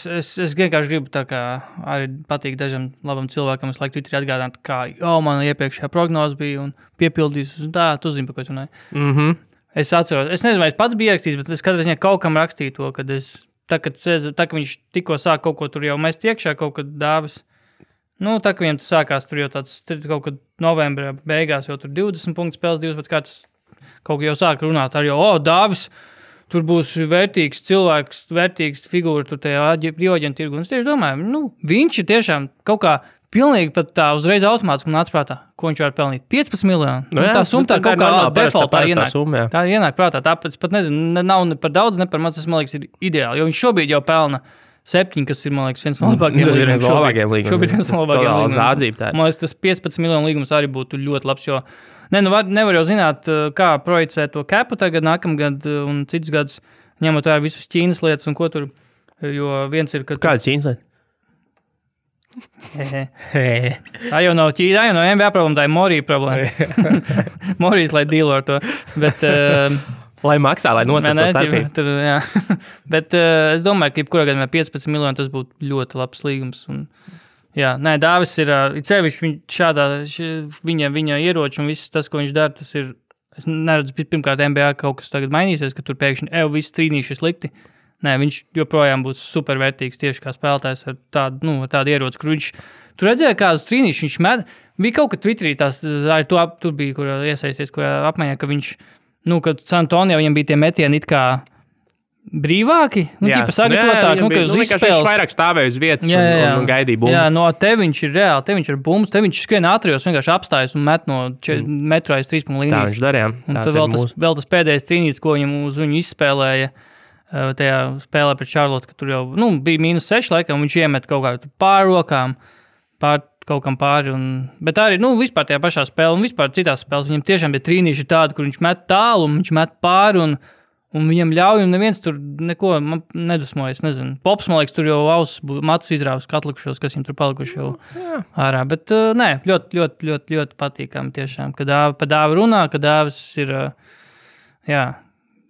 vienkārši gribu tā kā arī patīk dažam labam cilvēkam, es laiku Twitterī atgādāt, kā man iepriekšējā prognoze bija un piepildījis, un tā, tu zini, par ko tu runāji. Es atceros, es nezinu, vai es pats biju rakstījis, bet es katrā ziņā kaut kam rakstīju to, kad kad viņš tikko sāk kaut ko tur jau mest iekšā, kaut kad Dāvis. Tā, ka viņam tas sākās tur jau tāds kaut kad novembrā beigās, jau tur 20 punktu spēles, 2 pēc kāds kaut ko jau sāk runāt ar Dāvis. Tur būs vērtīgs cilvēks, vērtīgs figūra tur tajā brīvoģentu tirgu. Un es tieši domāju, viņš ir tiešām kaut kā pilnīgi pat tā uzreiz automātiski man atsprātā, ko viņš var pelnīt. 15 miljoni. Tā summa tā kaut kā defaultā ienāk. Tā ienāk prātā. Tāpēc pat nezinu, nav ne par daudz, ne par maz, tas man liekas ir ideāli. Jo viņš šobrīd jau pelna 7, kas ir, man liekas, viens no labākajiem līgumiem. Tas ir viens no labākajiem līgumiem. Šobrīd viens no labākajiem līgumiem. Man liekas, tas 15 miljonu līgums arī būtu ļoti labs, jo nevar jau zināt, kā projicē to capu tagad, nākamgad un cits gads, ņemot vērā visas Ķīnas lietas un ko tur, jo viens ir, ka... Kādas Ķīnas lietas? Tā jau nav Ķīna, tā jau nav NBA problēma, tā ir Morija problēma. Morijas, lai dīlo ar to, bet... Lai maksā, lai nosacītu starpību. Bet es domāju, ka jebkurā gadījumā 15 miljoni tas būtu ļoti labs līgums. Dāvis ir sevišķi viņa ieroči un viss tas, ko viņš dara, tas ir, es neredzu, pirmkārt NBA kaut kas tagad mainīsies, ka tur pēkšņi visi trīnīši ir slikti. Viņš joprojām būs supervērtīgs tieši kā spēlētājs ar tādu ieroci, kur viņš, tu redzēji kādus trīnīšus, viņš met, bija kaut ka Twitterī tās, arī tur bija, kur iesaisties, kur apmaiņā, ka viņš, kad San Antonio viņam bija tie metieni it kā brīvāki, tīpa sagatavotāk, ka uz izspēles. Viņš vairāk stāvēja uz vietas un gaidīja bumbu. Te viņš ir reāli, te viņš ir bumbas, te viņš skrien ātrijos, vienkārši apstājas un met no metru aiz 3 līnijas. Tā viņš darīja. Un tad vēl tas pēdējais trīnītis, ko viņam uz viņu izspēlēja, tajā spēlē pret Charlotte, ka tur jau, bija -6 laikam, viņš iemet kaut kā pāri rokām, kaut kam pāri, bet arī, vispār tajā pašā spēlē un vispār citās spēlēs, viņam tiešām bija trīnīši tādi, kur viņš met tālu un viņš met pāri un viņam ļauj, un neviens tur neko nedusmojas, nezinu. Pops, man liekas, tur jau matus izrāvis atlikušos, kas viņam tur palikuši jau ārā, bet ļoti, ļoti, ļoti, ļoti patīkami tiešām, kad pa Dāvi runā, ka Dāvis ir,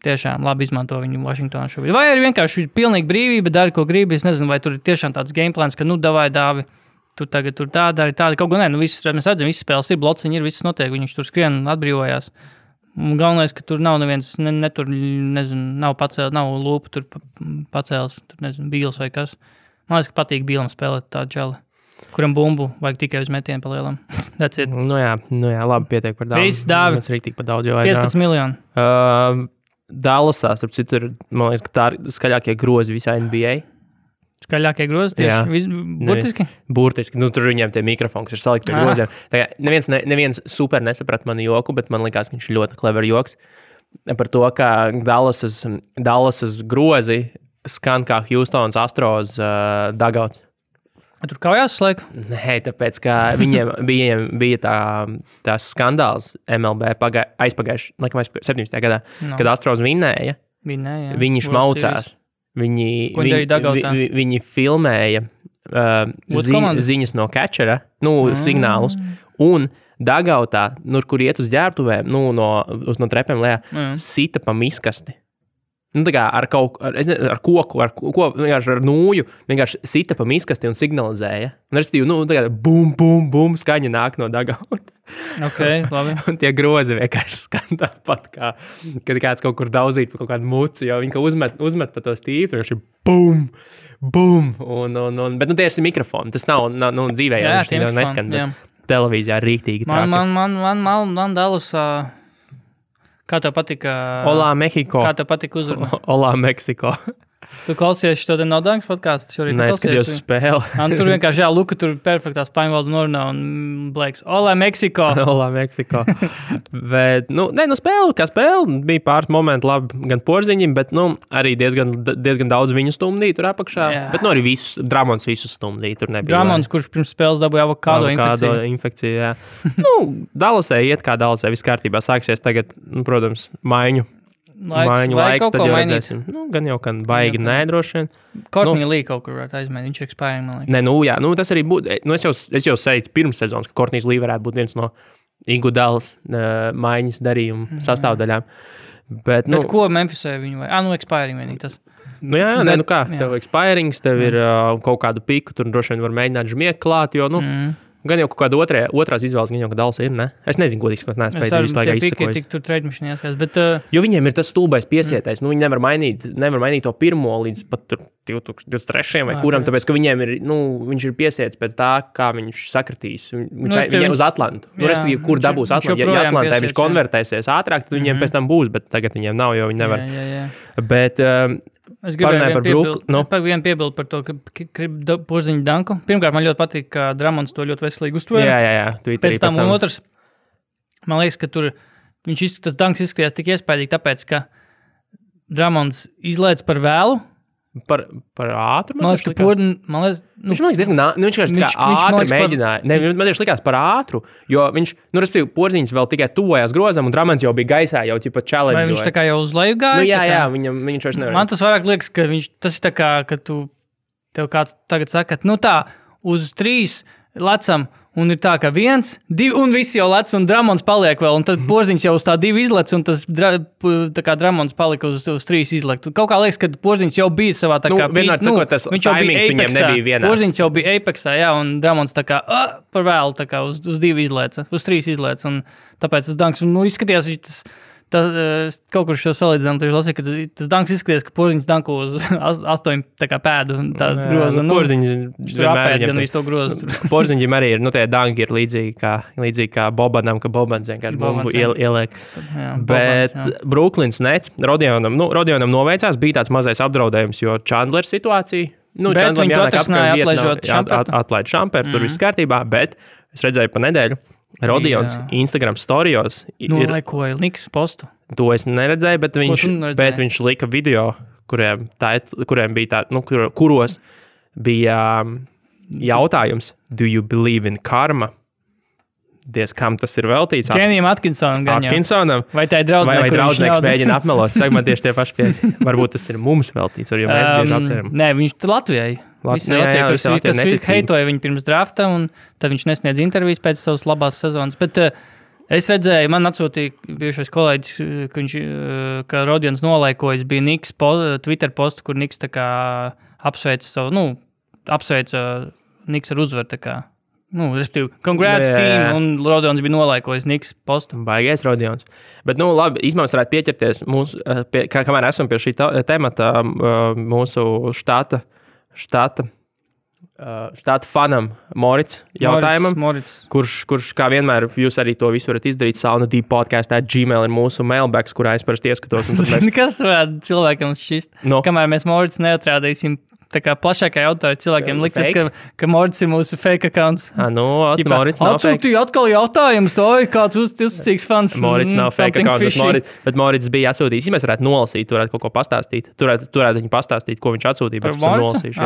tiešām labi izmanto viņu Vašingtonā šobrīd. Vai arī vienkārši pilnīgi brīvība, dari, ko gribi, es nezinu, vai tur ir tiešām tāds gameplans, ka, davai Dāvi, tur tagad tur tāda, kaut ko mēs redzam, visas spēles ir, blociņi ir, viss notiek, viņš tur skrien un atbrīvojās. Un galvenais, ka tur nav neviens, tur, nezinu, nav lūpa tur pacēlis, tur, nezinu, Bīls vai kas. Man liekas, ka patīk Bīlam spēlēt tādu čali, kuram bumbu vajag tikai uz metienu pa lielam. That's it. Jā, labi, pietiek par daudz. Viss Dāvi. Mēs rīktīgi par daudz jau 15 miljoni. Dallasā, starp citu, man liekas, ka tā ir skaļākie grozi visā NBA. Skaļākie grozi tieši burtiski? Burtiski. Tur viņiem tie mikrofoni, kas ir salikti pie groziem. Neviens super nesaprat manu joku, bet man likās, ka viņš ir ļoti clever joks par to, ka Dallasas grozi skan kā Houstons Astros dugouts. Tur kājās slēg? Nē, tāpēc, ka viņiem bija tās skandāls MLB aizpagājuši 17. gadā, kad Astros vinnēja. Viņi šmaucās. Viņi filmēja ziņas no catchera, signālus, un dugoutā, kur iet uz ģērbtuvēm, no trepēm lejā, sita pa miskasti. Tā kā ar koku, vienkārši ar nūju, vienkārši sita pa miskasti un signalizēja. Un respektīvi, tā kā bum, bum, bum, skaņa nāk no dugouta. Ok, labi. Un tie grozi vienkārši skan tāpat, kā, kad kāds kaut kur daudzīt pa kaut kādu mucu, jo viņi uzmet pa to stīpu, vienkārši bum, bum. Bet tie ir mikrofoni, tas nav dzīvē, jā, viņš neskan, bet televīzijā ir rīktīgi trāki. Man Dallas... Kā tev patika? Olā, Mehiko. Kā tev patika uzruna? Olā, Meksiko. Tu klausies šo te Nodangas podcastu? Nē, skatījos spēli. Tur vienkārši, Luka tur perfektā spāņu valodu norunā un Blaiks, Olā, Meksiko. Olā, Meksiko. Bet, spēle, kā spēle, bija pāris momenti labi gan porziņiem, bet, arī diezgan daudz viņu stumdīja tur apakšā. Jā. Bet, arī Dramons visus stumdīja, tur nebija. Dramons, kurš pirms spēles dabūja avokādo infekciju, jā. Dallasē iet kā Dallasē, viss kārtībā sāksies tagad, protams, maiņu laiks, tad jau redzēsim. Gan jau, kan baigi nedroši vien. Courtney Lee kaut kur varētu aizmēt, viņš ir ekspērīgi, man liekas. Nē, tas arī būtu, es jau seicu pirms sezonas, ka Courtney Lee varētu būt viens no Iguodals maiņas darījuma sastāvdaļām. Bet ko Memphisē viņu vai? Ekspērīgi vienīgi tas. Tev ekspērings, tev ir kaut kādu piku, tur droši vien var mēģināt žmiek klāt, jo, gan jau kaut kāda otrās izvēles, gan jau, ka Dallas ir, ne? Es nezinu, godīgi, ko es neesmu spējis visu laikā izsakojis. Tik tur trade machine jāskatās, bet... Jo viņiem ir tas stulbais piesietais, viņi nevar mainīt to pirmo līdz pat 2023. vai kuram, tāpēc, ka viņiem ir, viņš ir piesiets pēc tā, kā viņš sakritīs. Viņiem uz Atlantu. Respektīvi, kur dabūs Atlantu. Ja Atlantē viņš konvertēsies ātrāk, tad viņiem pēc tam būs, bet tagad viņiem nav, jo viņi nevar. Bet... Es gribēju vienu piebildu par to, ka porziņu danku. Pirmkārt, man ļoti patīk, ka Dramons to ļoti veselīgi uztvēra. Jā. Pēc tam un otrs, man liekas, ka tur tas danks izskatījās tik iespaidīgi, tāpēc, ka Dramons izlaic par vēlu. Par ātru? Man liekas, ka viņš diezgan ātri mēģināja. Man tieši likās par ātru, jo viņš, respektīvi, porziņš vēl tikai tuvojas grozam, un Dramons jau bija gaisā, jau ķipa challenge. Vai viņš tā kā jau uz leju gāja? Jā, viņš vairs nevar. Man tas vairāk liekas, ka tas ir tā kā, ka tev kāds tagad saka, uz 3 lecam, un ir tā, ka 1, 2, un visi jau lec, un Dramons paliek vēl, un tad porziņš jau uz tā 2 izlec, un tas tā kā Dramons palika uz 3 izlec. Kaut kā liekas, ka porziņš jau bija savā tā kā... Vienmēr sakot, tas timings viņiem nebija vienās. Porziņš jau bija Apexā, jā, un Dramons tā kā par vēlu, tā kā uz 2 izlec, uz 3 izlec, un tāpēc tas danks, izskatījās, kaut kur šo salīdzinām, lasīju, ka tas danks izskaties, ka porziņš danko uz 8 pēdu un tādu grozu. Porziņš apēd gan visu to grozu. Porziņģim arī ir, tie danki ir līdzīgi kā Bobanam, ka Bobans vienkārši bumbu ieliek. Bet Brooklyns Nets, Rodionam noveicās, bija tāds mazais apdraudējums, jo Chandlers situācija. Bet viņi to atrisināja atlaid Šamperu, tur viss kārtībā, bet es redzēju pa nedēļu, Rodions Instagram storijos nolaikoja Niks postu. To es neredzēju, bet viņš lika video, kuriem bija kuros bija jautājums, do you believe in karma? Kam tas ir veltīts? Kenijam Atkinsonam. Vai tā ir draudzene, vai draudzenieks mēģina apmelot? Saka, man tieši tie paši pieeja. Varbūt tas ir mums veltīts, jo mēs bieži apsveram. Nē, viņš Latvijai. Visi Latvijai, kas heitoja viņu pirms drafta, un tad viņš nesniedz intervijas pēc savas labās sezonas. Bet es redzēju, man atsūtīja bijušais kolēģis, ka Rodions nolaikojas, bija Niks Twitter postu, kur Niks tā kā apsveica Niks ar uzvaru tā kā. Respektīvi, congrats team, un Rodions bija nolaikojis Niks postu. Baigais Rodions. Bet, labi, izmērs varētu pieķerties kamēr esam pie šī temata mūsu štata fanam Morits jautājumam, kurš kā vienmēr jūs arī to visu varat izdarīt. saunadpodcast@gmail ir mūsu mailbags, kurā es parasti ieskatos. Kas varētu cilvēkam šķist? Kamēr mēs Morits neatrādīsim tā kā plašākai autori cilvēkiem liksies, ka Morits ir mūsu fake accounts. Morits nav fake. Atsūtīja atkal jautājums, kāds uzticīgs fans. Morits nav fake accounts, bet Morits bija atsūtījis. Mēs varētu nolasīt, varētu kaut ko pastāstīt. Turētu viņu pastāstīt, ko viņš atsūtīja, bet esam nolasījuši.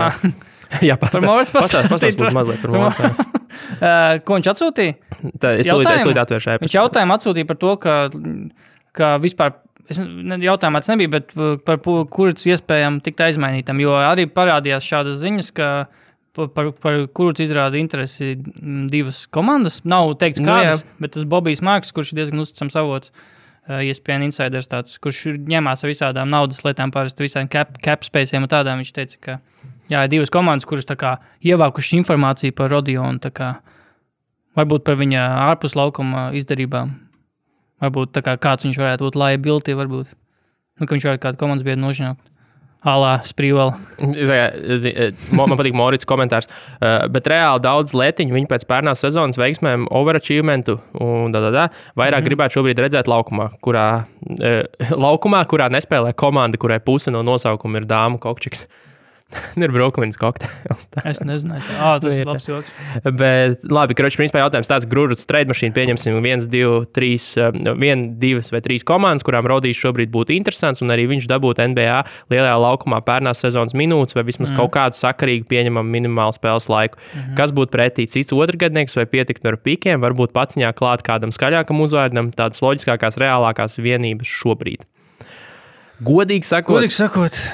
Jā, pastāstīt mazliet par Morits. Ko viņš atsūtīja? Es lūdzu atvēršu ēpastu. Viņš jautājumu atsūtīja par to, ka vispār, jautājumā tas nebija, bet par kurus iespējami tikt aizmainītam, jo arī parādījās šādas ziņas, ka par kurus izrāda interesi divas komandas. Nav teikts kādas, bet tas Bobijs Marks, kurš ir diezgan uzticams avots, ESPN Insiders tāds, kurš ņemās ar visādām naudas lietām, parasti visādiem cap spaciem un tādām, viņš teica, ka jā, divas komandas, kuras tā kā ievākušas informāciju par Rodionu, tā kā varbūt par viņa ārpus laukuma izdarībām. Varbūt tā kā kāds viņš varētu būt liability, varbūt. Nu, ka viņš varētu kādu komandas biedru nožņaukt. Alā, Sprīvela. Man patīk Morits komentārs. Bet reāli daudz lietiņu viņi pēc pērnās sezonas veiksmēm overachievementu un vairāk gribētu šobrīd redzēt laukumā, kurā nespēlē komanda, kurai puse no nosaukuma ir dāmu kokčiks. Ir Brooklynas kokteils. Es nezināju. Tas ir labs joks. Bet labi, principā jautājums tāds, Grūžuts trade mašīnu pieņemsim 1, 2 vai 3 komandas, kurām Rodijs šobrīd būtu interesants, un arī viņš dabūtu NBA lielajā laukumā pērnās sezonas minūtes, vai vismaz kaut kādu sakarīgu pieņemam minimālu spēles laiku. Kas būtu pretī cits otrgadnieks, vai pietikt ar pikiem, varbūt paciņā klāt kādam skaļākam uzvārdam, tādas loģiskākās, reālākās vienības šobrīd. Godīgi sakot,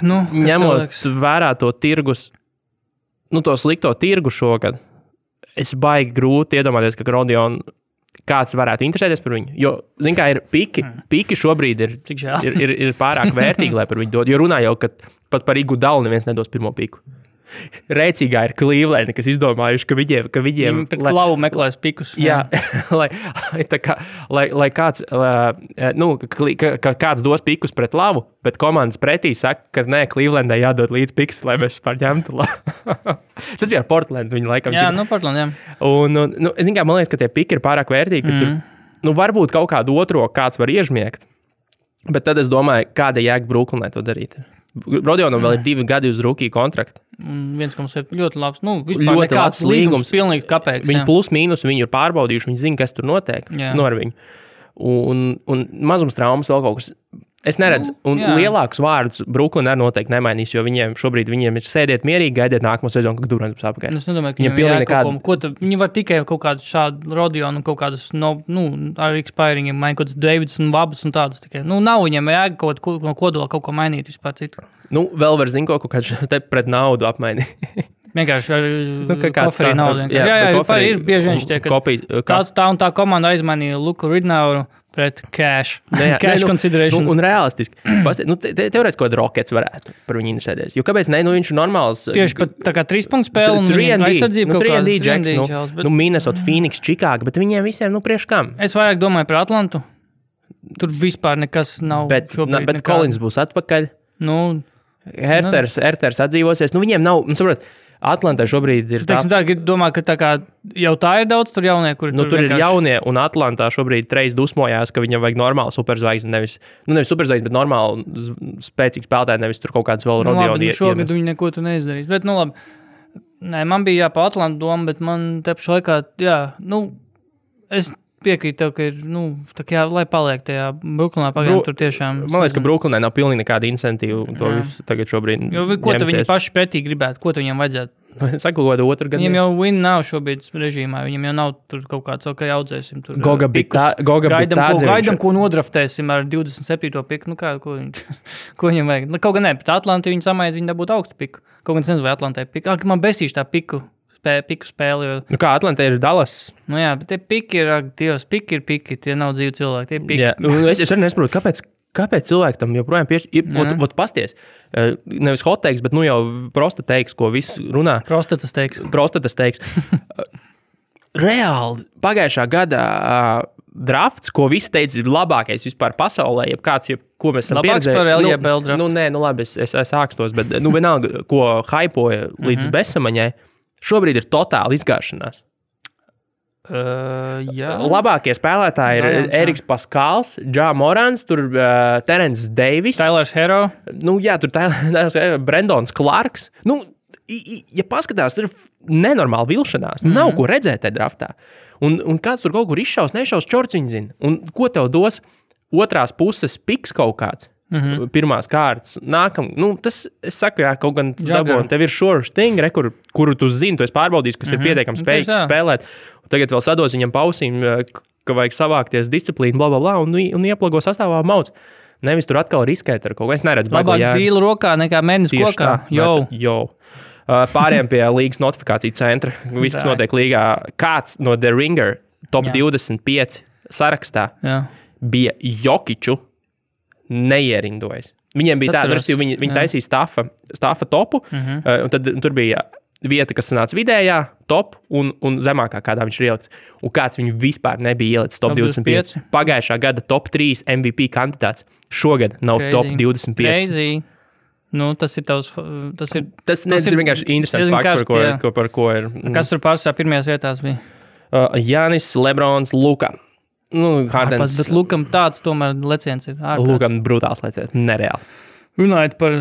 ņemot vērā to tirgus, to slikto tirgu šogad, es baigi grūti iedomāties, ka Rodionu kāds varētu interesēties par viņu. Jo, zin kā, ir piki šobrīd ir pārāk vērtīgi, lai par viņu dod. Jo runā jau, ka pat par Igudalu neviens nedos pirmo piku. Rēcīgā ir Cleveland, kas izdomājuši, ka viņiem pret klavu meklēs pikus. Jā, lai kāds, kāds dos pikus pret lavu, bet komandas pretī saka, ka nē, Clevelandai jādod līdz pikus, lai mēs vispār ņemtu lavu. Tas bija ar Portlandu, viņi laikam. Jā, Portland, jā. Un, es zinu, kā man liekas, ka tie piki ir pārāk vērtīgi, ka tur, varbūt kaut kādu otro kāds var iežmiegt, bet tad es domāju, kāda jēga Brooklynai to darīt. Rodionam vēl ir 2 gadi uz rookie kontraktu. 1,7 ļoti labs. Vispār ļoti nekāds līgums, pilnīgi kapēks. Viņi plus mīnus, viņi ir pārbaudījuši, viņi zina, kas tur notiek ar viņu. Un mazums traumas vēl kaut kas. Es neredzu. Un lielākus vārdus Brooklyn arī noteikti nemainīs, jo viņiem šobrīd ir sēdiet mierīgi, gaidiet nākamo sezonu, kad Durants būs apakaļ. Es nedomāju, ka viņi var tikai kaut kādu šādu Rodionu un kaut kādus, ar expiringiem, kaut kādus Davids un Vabas un tādus tikai. Nav viņiem jēga kaut ko no kodola kaut ko mainīt vispār citu. Vēl var zin kaut kādu te pret naudu apmainīt. Vienkārši ar koferī naudu. Jā, ir bieži viņš tiek, ka tā un tā komanda aizmainīja Luku Ridnauru pret cash considerations. Un realistiski. Teorētiski kaut kāda Rockets varētu par viņu interesēties. Jo kāpēc ne? Viņš ir normāls. Tieši pat tā kā 3 punktu spēle un aizsardzība kaut kāda. 3&D Jacks, Minnesota, Phoenix, Chicago, bet viņiem visiem, priekš kam? Es vairāk domāju par Atlantu. Tur vispār nekas nav šobrīd. Bet Collins būs atpakaļ. Herters atdzīvosies. Viņiem nav, saprot, Atlantā šobrīd ir domā, ka tā kā jau tā ir daudz tur jaunie, kuri tur vienkārši... ir jaunie, un Atlantā šobrīd Trejs dusmojās, ka viņam vajag normālu superzvaigzni, nevis superzvaigzni, bet normālu spēcīgu spēlētāju, nevis tur kaut kāds vēl Rodionu šogad viņi neko tu neizdarīs, bet labi. Nē, man bija pa Atlantu doma, bet man te pašā laikā, es piekrītu tev, ka ir, tā kā lai paliek tajā Brooklynā pagaidām tur tiešām. Man liekas, ka Brooklynai nav pilnīgi nekāda incentīva to visu tagad šobrīd. Jo ko tu viņi paši pretī gribētu, ko tu viņiem vajadzētu? Saku, ko otru gadu. Viņiem jau win nav šobrīd režīmā, viņiem jau nav tur kaut kāds, audzēsim tur pikus. Gaidam, ko nodraftēsim ar 27. piku, ko viņiem vajag. Kaut gan ne, bet Atlanti viņi samaid, viņi dabūtu augstu piku. Kaut gan es nezinu, vai Atlantai piku. Man besīši tā piku spēli. Jo... kā Atlantā ir Dallas? Jā, bet tie piki ir, Dievs, piki ir piki, tie nav dzīvi cilvēki, tie piki. Jā, es arī nesaprotu, kāpēc cilvēki tam joprojām piešķir. Pasties, nevis hot teiks, bet jau prosta teiks, ko viss runā. Prostatas teiks. Reāli, pagājušā gada drafts, ko visi teica, ir labākais vispār pasaulē, ko mēs esam pieredzējuši. Labāks par LJBL drafts. Labi, es ākstos, bet vienalga, ko haipoja līdz besamaņai, šobrīd ir totāli izgāšanās. Jā. Labākie spēlētāji ir Eriks Paskals, Ja Morants, tur Terence Davis. Tylers Hero. Tur Tylers Hero, Brendons Clarks. ja paskatās, tur ir nenormāli vilšanās. Nav ko redzēt tajā draftā. Un kāds tur kaut kur izšaus, nešaus, čorciņi zina. Un ko tev dos otrās puses piks kaut kāds? Pirmās kārtas. Tas, es saku, kaut gan dabūn, tev ir sure thing, kuru tu zini, tu esi pārbaudījis, kas ir pietiekami spējīgs spēlēt. Un tagad vēl sados viņam pausīm, ka vajag savākties disciplīnu, blablabla, un ieplago sastāvā mauc. Nevis tur atkal riskēt ar kaut ko. Es neredzu. Labāk zīlu rokā nekā mēnesis kokā. Jau. Pāriem pie līgas notifikāciju centra. Viss, kas notiek līgā. Kāds no The Ringer top 25 sarakstā bija Jokiču neierindojas. Viņiem bija tāda, viņi taisīja staffa topu, un tad tur bija vieta, kas sanāca vidējā, top un zemākā, kādā viņš ir ielicis. Un kāds viņu vispār nebija ielicis top 25. Pagājušā gada top 3 MVP kandidāts. Šogad nav top 25. Crazy. Tas ir tavs... Tas ir vienkārši interesants fakts, par ko ir... Kas tur pārsvarā pirmajās vietās bija? Jānis, Lebrons, Luka. Hardens. Bet Lukam tāds tomēr leciens ir ārkārtas. Lukam brutāls leciens, nereāli. Runājot par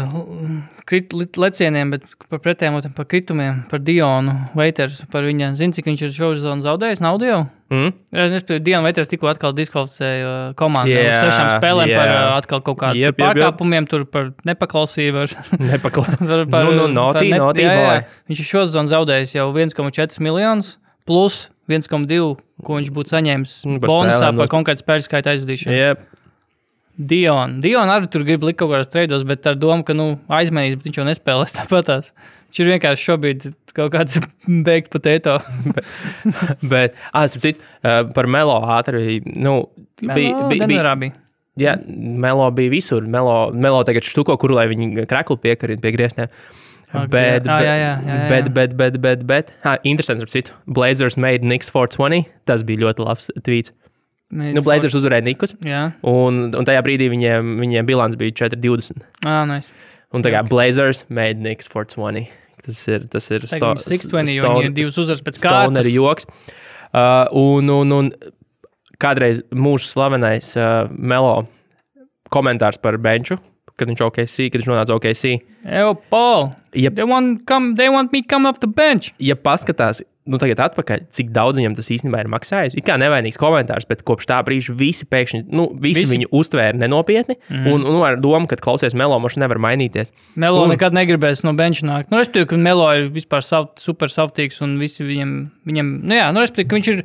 lecieniem, bet par pretējiem, par kritumiem, par Dionu Waiters, par viņa, zini, cik viņš ir šovsezonu zaudējis, naudu jau? Dionu Waiters tikko atkal diskvalificēja komandu uz 6 spēlēm par atkal kaut kādu pārkāpumiem, tur par nepaklausību. Viņš ir šovsezonu zaudējis jau 1,4 miljonus plus 1,2, ko viņš būtu saņēmis bonusā par konkrētu spēļu skaita aizvadīšanu. Dion arī tur grib likt kaut kādās treidos, bet ar domu, ka aizmainīs, bet viņš jau nespēlēs tāpatās. Viņš ir vienkārši šobrīd kaut kāds baked potato. Bet, par Melo ātri, Denverā bija. Jā, Melo bija visur. Melo tagad štuko, kuru lai viņi kreklu piekarina pie griestiem. Bet, interesants ar citu. Blazers made Knicks 420. Tas bija ļoti labs tweets. Blazers uzvarēja Nikus, un tajā brīdī viņiem bilants bija 4-20. Nice. Un tā kā Blazers made Knicks 420. Tas ir 620, jo viņi ir 2 uzvaras pēc kārtas. Stoner joks. Un kādreiz mūsu slavenais Melo komentārs par benču, kad viņš nonāca OKC. Paul, they want me come off the bench. Ja paskatās, tagad atpakaļ, cik daudz viņam tas īstenībā ir maksājis. It kā nevainīgs komentārs, bet kopš tā brīža visi pēkšņi, visi viņu uztvēra nenopietni, un ar domu, ka klausies Melo, moši nevar mainīties. Melo nekad negribēs no benča nākt. Respektīvi, ka Melo ir vispār super saftīgs, un visi viņam respektīvi, ka viņš ir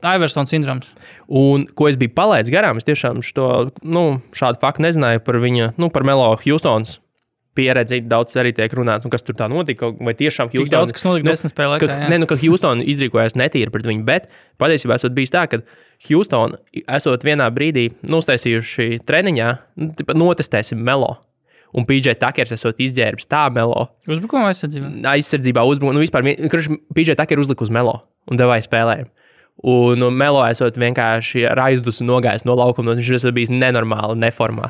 Iverson sindroms. Un, ko es biju palaidis garām, es tiešām šādu faktu nezināju par viņa, par Melo Houstons pieredzi, daudz arī tiek runāts, un kas tur tā notika, vai tiešām Houston... Tik daudz, kas notika 10 spēlē laikā, ka Houston izrīkojās netīri pret viņu, bet patiesībā esot bijis tā, ka Houston esot vienā brīdī uztaisījuši treniņā, notestēsim Melo, un PJ Tuckers esot izģērbis tā Melo. Uzbrukuma aizsardzībā? Aizsardzībā uzbrukuma, vispār, PJ Tucker uzlika uz Melo, un devāja spēlējumu. Un Melo esot vienkārši ar aizdusu nogājis no laukuma, viņš esot bijis nenormāli neformā.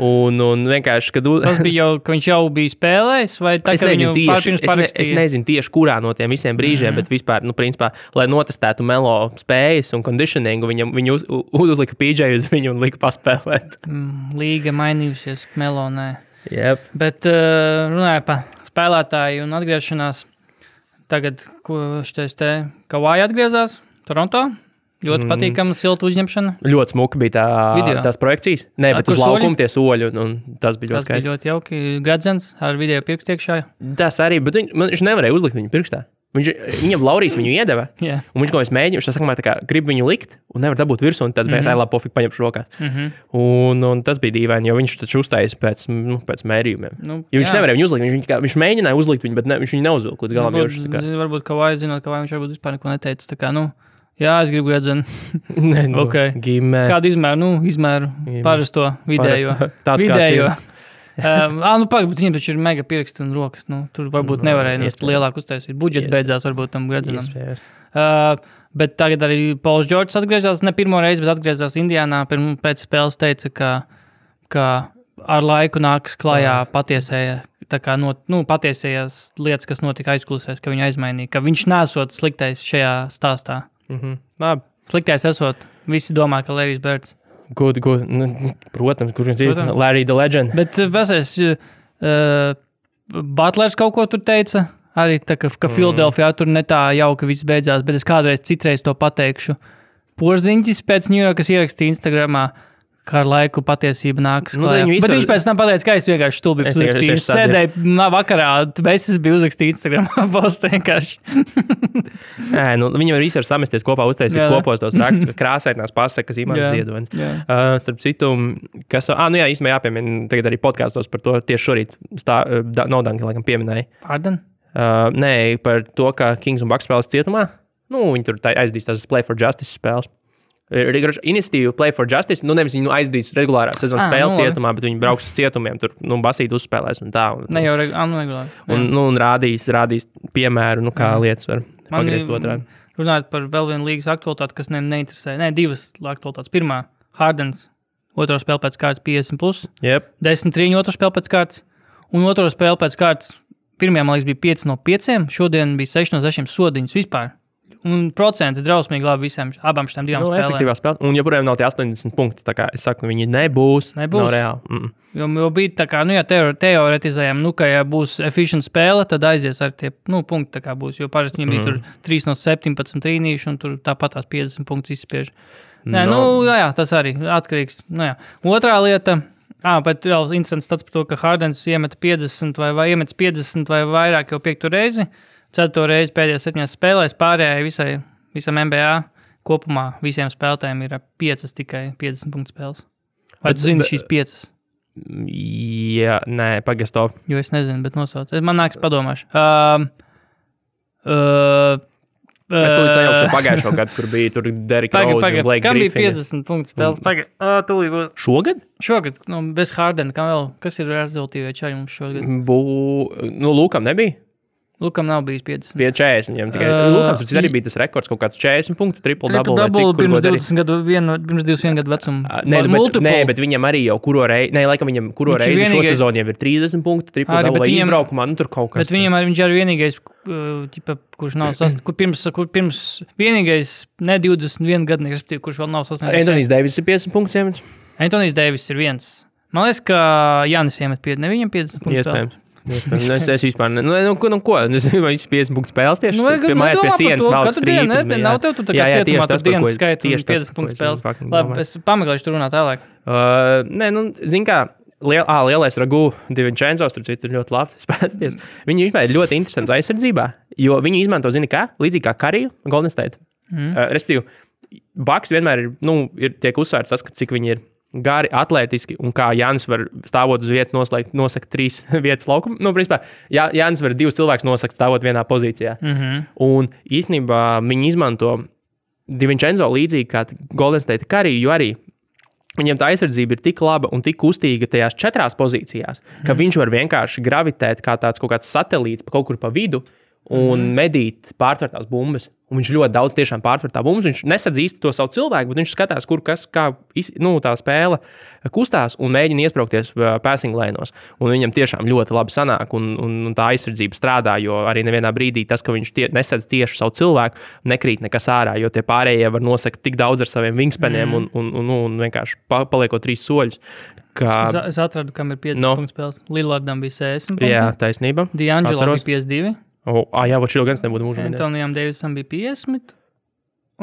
Un vienkārši, kad... Tas bija jau, ka viņš jau bija spēlējis, vai tā, ka viņu pārpirms parakstīja? Es nezinu tieši, kurā no tiem visiem brīžiem, bet vispār, principā, lai notestētu Melo spējas un conditioningu, viņu uzlika PJ uz viņu un lika paspēlēt. Līga mainījusies, Melo nē. Yep. Bet runāja par spēlētāju un atgriešanās. Tagad, ko šitais Kawhi atgriezās Toronto? Ļoti patīkama, silta uzņemšana. Ļoti smuka bija tās projekcijas. Nē, bet uz laukuma tie soļi, un tas bija ļoti skaisti. Tas bija ļoti jauki. Gradzens ar video pirkstu iekšā. Tas arī, bet viņš nevarēja uzlikt viņu pirkstā. Viņam Laurijas viņu iedeva, un viņš kaut kā mēģināja, viņš sākumā tā kā grib viņu likt, un nevar dabūt virsū, un tas bija labi pofīgi paņemšu rokās. Un tas bija dīvaini, jo viņš taču uzstājas pēc mērījumiem. Jo viņš nevarēja viņu uzlikt, viņš mēģināja uzlikt viņu, bet viņš viņu neuzvilka līdz galam. Varbūt Kawhi zinot, ka viņš varbūt vispār neko neteica, tā kā, jā, es gribu gradzenu. Okay. Kādu izmēru? Izmēru parasto vidējo. Vidējo. Pagaid, bet viņiem taču ir mega pirksti un rokas. Tur varbūt nevarēja lielāk uztaisīt. Budžets beidzās varbūt tam gradzenam. Bet tagad arī Pauls Džordžs atgriezās, ne pirmo reizi, bet atgriezās Indiānā. Pēc spēles teica, ka ar laiku nāks klājā patiesējās lietas, kas notika aizkulisēs, ka viņu aizmainīja, ka viņš nesot sliktais šajā stāstā. Labi. Sliktais esot, visi domā, ka Larrys Birds. Protams, kur viņš ir Larry the Legend. Bet pasēs, Butlers kaut ko tur teica. Arī tā, ka Philadelphia tur ne tā jauka viss beidzās, bet es citreiz to pateikšu. Porziņķis pēc New Yorkas ierakstīja Instagramā, kā ar laiku patiesība nākas klājā. Bet viņš pēc tam pateica, ka es vienkārši stulbi uzrakstīju. Viņš sēdēja vakarā, es biju uzrakstījis Instagramā postu vienkārši. Viņi var visi var samesties kopā, uztaisīt kopos tos rakstus, krāsainās pasakas, Imants Ziedonis. Starp citu, kas, īstenībā jāpiemina, tagad arī podkāstos par to tieši šorīt Nodanka, laikam, pieminēja. Harden? Nē, par to, ka Kings un Bucks spēles cietumā. Viņi tur aizdīs tās Play for Justice spēles. Iniciatīva Play for Justice, nevis viņi aizdīs regulārā sezonas spēli cietumā, bet viņi brauks uz cietumiem, tur basīt uzspēlēs un tā. Ne jau regulāri. Un rādīs piemēru, kā lietas var pagriezt otrādi. Runājot par vēl vienu līgas aktualitāti, kas neinteresē. Divas aktualitātes. Pirmā, Hardens, otro spēle pēc kārtas 50+. Yep. 10-3 otro spēle pēc kārtas. Un otro spēle pēc kārtas, pirmajā, man liekas, bija 5 no 5, šodien bija 6 no 6 sodiņas vispār. Un procenti drausmīgi labi abām šitām divām spēlēm. Efektīvā spēlē. Un joprojām nav tie 80 punkti. Tā kā es saku, viņi nebūs. Nav reāli. Jo bija tā kā, teoretizējām, ka ja būs efficient spēle, tad aizies ar tie, punkti tā kā būs. Jo parasti viņiem bija tur 3 no 17 trīnīši un tur tāpat tās 50 punktus izspiež. Tas arī atkarīgs. Otrā lieta, bet vēl interesants tāds par to, ka Hardens iemet 50 vai iemet 50 vai vairāk jau 5. reizi. 4. reizi pēdējās 7 spēlēs, pārējai visam NBA kopumā visiem spēlētājiem ir 5 tikai 50 punktu spēles. Vai tu zini šīs 5? Jā, nē, pagaist to. Jo es nezinu, bet nosauc. Man nāks padomāšu. Mēs tūlīt sajaukšu pagājušo gadu, kur bija tur Derrick Rose un Blake Griffin. Kam bija 50 punktu spēles? Tūlīt būs. Šogad? Šogad, bez Hardena. Kas ir rezultīvie čaļi mums šogad? Lūkam nebija? Lukam nav bijis 50. Bija 40 viņam tikai. Lukams arī bija tas rekords, kaut kāds 40 punktu, triple-double. Pirms 21 gadu vecuma. Nē, bet viņam arī jau laikam viņam kuro reizi šo sezonu jau ir 30 punktu, triple-double vai izbraukumā, tur kaut kas. Bet viņam viņš arī vienīgais, kurš nav sasniedzis, kur pirms vienīgais ne 21 gadnieks, kurš vēl nav sasniedzis. Anthony Davis ir 50 punktus iemet. Anthony Davis ir viens. Man liekas, ka Jānis iemet 50, ne viņam 50 punktus. Iespējams. Es vispār ko? Es 50 punktu spēles tieši. Mājās pie sienas valsts trīpas. Nav tev tu tā kā cietumā tur dienas skaita un 50 punktu spēles. Labi, es pameklēšu tur runāt tālāk. Zin kā, lielais Ragu DiVincenzo, starp citu, ir ļoti labs spēlēties. Viņi vispār ir ļoti interesants aizsardzībā, jo viņi izmanto, zini kā, līdzīgi kā Kariju un Golden State. Respektīvi, Bucks vienmēr tiek uzsvērts tas, cik viņi ir gari, atlētiski, un kā Jānis var stāvot uz vietas nosakt 3 vietas laukumu. Principā, Jānis var 2 cilvēkus nosakt stāvot vienā pozīcijā. Un īstenībā viņi izmanto DiVincenzo līdzīgi kā Golden State Curry, jo arī viņiem tā aizsardzība ir tik laba un tik kustīga tajās 4 pozīcijās, ka viņš var vienkārši gravitēt kā kaut kāds satelīts kaut kur pa vidu un medīt pārtvertās bumbas. Un viņš ļoti daudz tiešām pārtvertā bumbas. Viņš nesadz īsti to savu cilvēku, bet viņš skatās, kā tā spēle kustās un mēģina iespraukties passing lēnos. Un viņam tiešām ļoti labi sanāk un tā aizsardzība strādā, jo arī nevienā brīdī tas, ka viņš nesadz tieši savu cilvēku, nekrīt nekas ārā, jo tie pārējie var nosakt tik daudz ar saviem wingspaniem un vienkārši paliekot 3 soļus. Es atradu, kam ir 5 punktu spēles. Lillardam bija 60 punkti. Jā, taisnība. D'Angelo bija 52. Jā, šī gan nebūtu mūžā. Antonijam Davisam bija 50,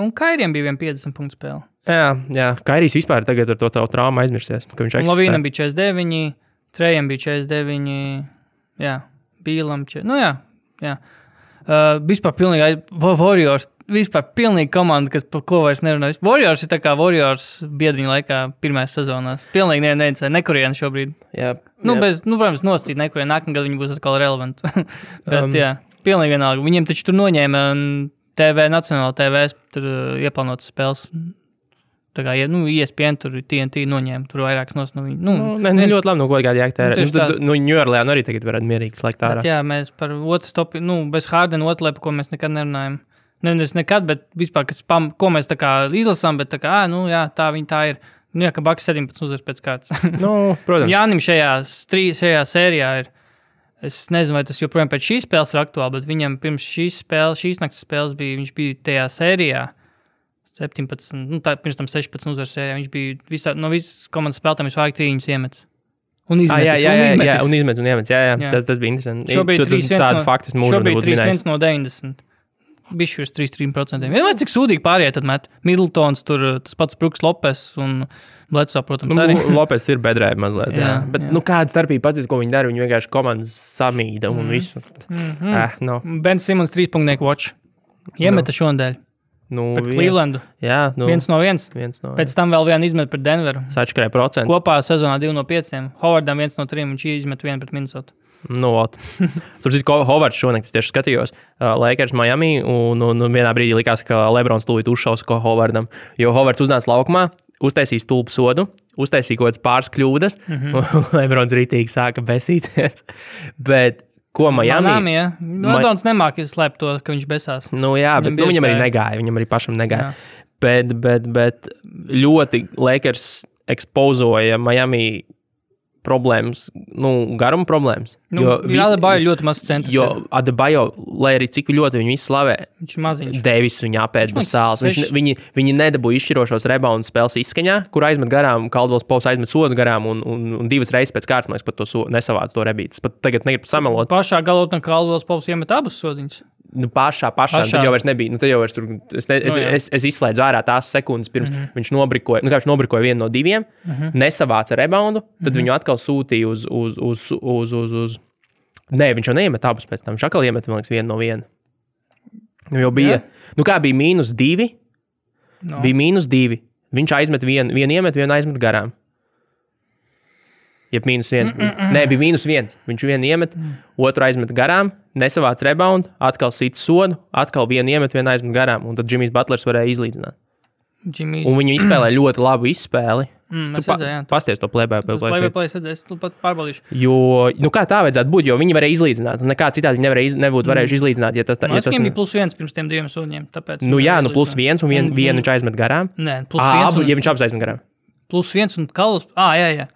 un Kairijam bija 50 punktu spēle. Jā, Kairijs vispār tagad ar to traumu aizmirsies. Lavīnam bija 49, Trejam bija 49, jā, Bīlam 40. Jā. Vispār pilnīgi Warriors, vispār pilnīgi komanda, kas par ko vairs nerunājas. Warriors ir tā kā Warriors biedriņu laikā pirmajās sezonās. Pilnīgi nevincē, nekurien šobrīd. Jā. Protams, nosacīt nekurien, nākamgad viņi būs atkal relevanti. Bet, jā. Pilnīgi vienalga. Viņiem taču tur noņēma Nacionāla TV tur ieplānotas spēles. Tā kā, ESPN tur TNT noņēma, tur vairākas nos no viņu. Ļoti labi, ko kādi jāktērē. New Orleans arī tagad varētu mierīgi slēgt ārā. Jā, mēs par otru stopi, bez Hardena otru, ko mēs nekad nerunājam. Nevis nekad, bet vispār, ko mēs tā kā izlasām, bet tā kā, tā viņa tā ir. Ka Bucks 17 uzvars pēc kārtas. Protams. Jānim šajā sērijā ir. Es nezinu, vai tas joprojām pēc šīs spēles ir aktuāli, bet viņam pirms šīs naktas spēles viņš bija tajā sērijā 17, pirms tam 16 uzvaras sērijā. Viņš bija no visas komandas spēlētājiem visvairāk trīņus iemets. Un izmetis. Jā. Tas bija interesanti. Šobrīd tādu faktu mūžu nebūtu minējis. 3-1 no 90. Bišķi uz 3%. Vienmēr cik sūdīgi pārējie tad met. Middletons, tur tas pats Bruks Lopes un Bledsoe, protams, arī. Lopes ir bedrē mazliet, jā. Bet, kāda starpība pats, ko viņi dara, viņi vienkārši komandas samīda un visu. Ben Simmons 3-punknieku watch. Iemeta šonadēļ. Pret Clevelandu. Jā. 1-1. Pēc tam vēl vienu izmet pret Denveru. Sačkarē procentu. Kopā sezonā 2-5. Howardam 1-3, viņš izmet 1 pret Minnesota. Hovards šonakt tieši skatījos Lakers Miami un vienā brīdī likās, ka Lebrons tūlīt uzšaus ko Hovardam, jo Hovards uznāca laukumā, uztaisīja stulbu sodu, uztaisīja kaut kādas pāris kļūdas, un Lebrons rītīgi sāka besīties. Bet ko Miami? Lebrons nemāk slēpt to, ka viņš besās. Bet viņam arī negāja, viņam arī pašam negāja. Bet ļoti Lakers ekspozoja Miami problēmas, garuma problēmas. Adebayo ļoti maz centrs. Jo Adebayo, lai arī cik ļoti viņu izslavē, viņš maziņš. Davis viņu apēd bez sāls. Viņi nedabūja izšķirošos reboundu spēles izskaņā, kur aizmet garām, Caldwells Pops aizmet sodu garām un 2 reizes pēc kārtas, man liekas, pat to nesavāc to rebītas. Pat tagad negribu samelot. Pašā galotnē Caldwells Pops iemet abas sodiņas. Pašā. Tad jau vairs nebija. Tad jau vairs tur, es izslēdzu ārā tās sekundes, pirms viņš nobrikoja. Viņš nobrikoja 1 no 2, nesavāca reboundu, tad viņu atkal sūtīja uz Nē, viņš jau neiemet abus pēc tam. Viņš atkal iemet, man liekas, 1 no 1. Jau bija. Kā bija -2? Bija -2. Viņš aizmet vienu iemet, vienu aizmet garām. Jeb -1. Nē, bija -1. Viņš vienu iemet, otru aizmet garām, nesavāc reboundu, atkal sit sodu, atkal vienu iemet, vienu aizmet garām, un tad Jimmys Butlers varēja izlīdzināt. Un viņi izspēlēja ļoti labu izspēli. Pasties to plēbēju. Es pat pārbaudīšu. Jo, kā tā vajadzētu būt, jo viņi varēja izlīdzināt, un nekā citādi viņi nebūtu varējuši izlīdzināt, ja tas... Viņam bija +1 pirms tiem 2 sūņiem, tāpēc... +1 un vienu viņš aizmet garām. Nē, +1 ja viņš abas aizmet garām. +1 un Caldwells... jā.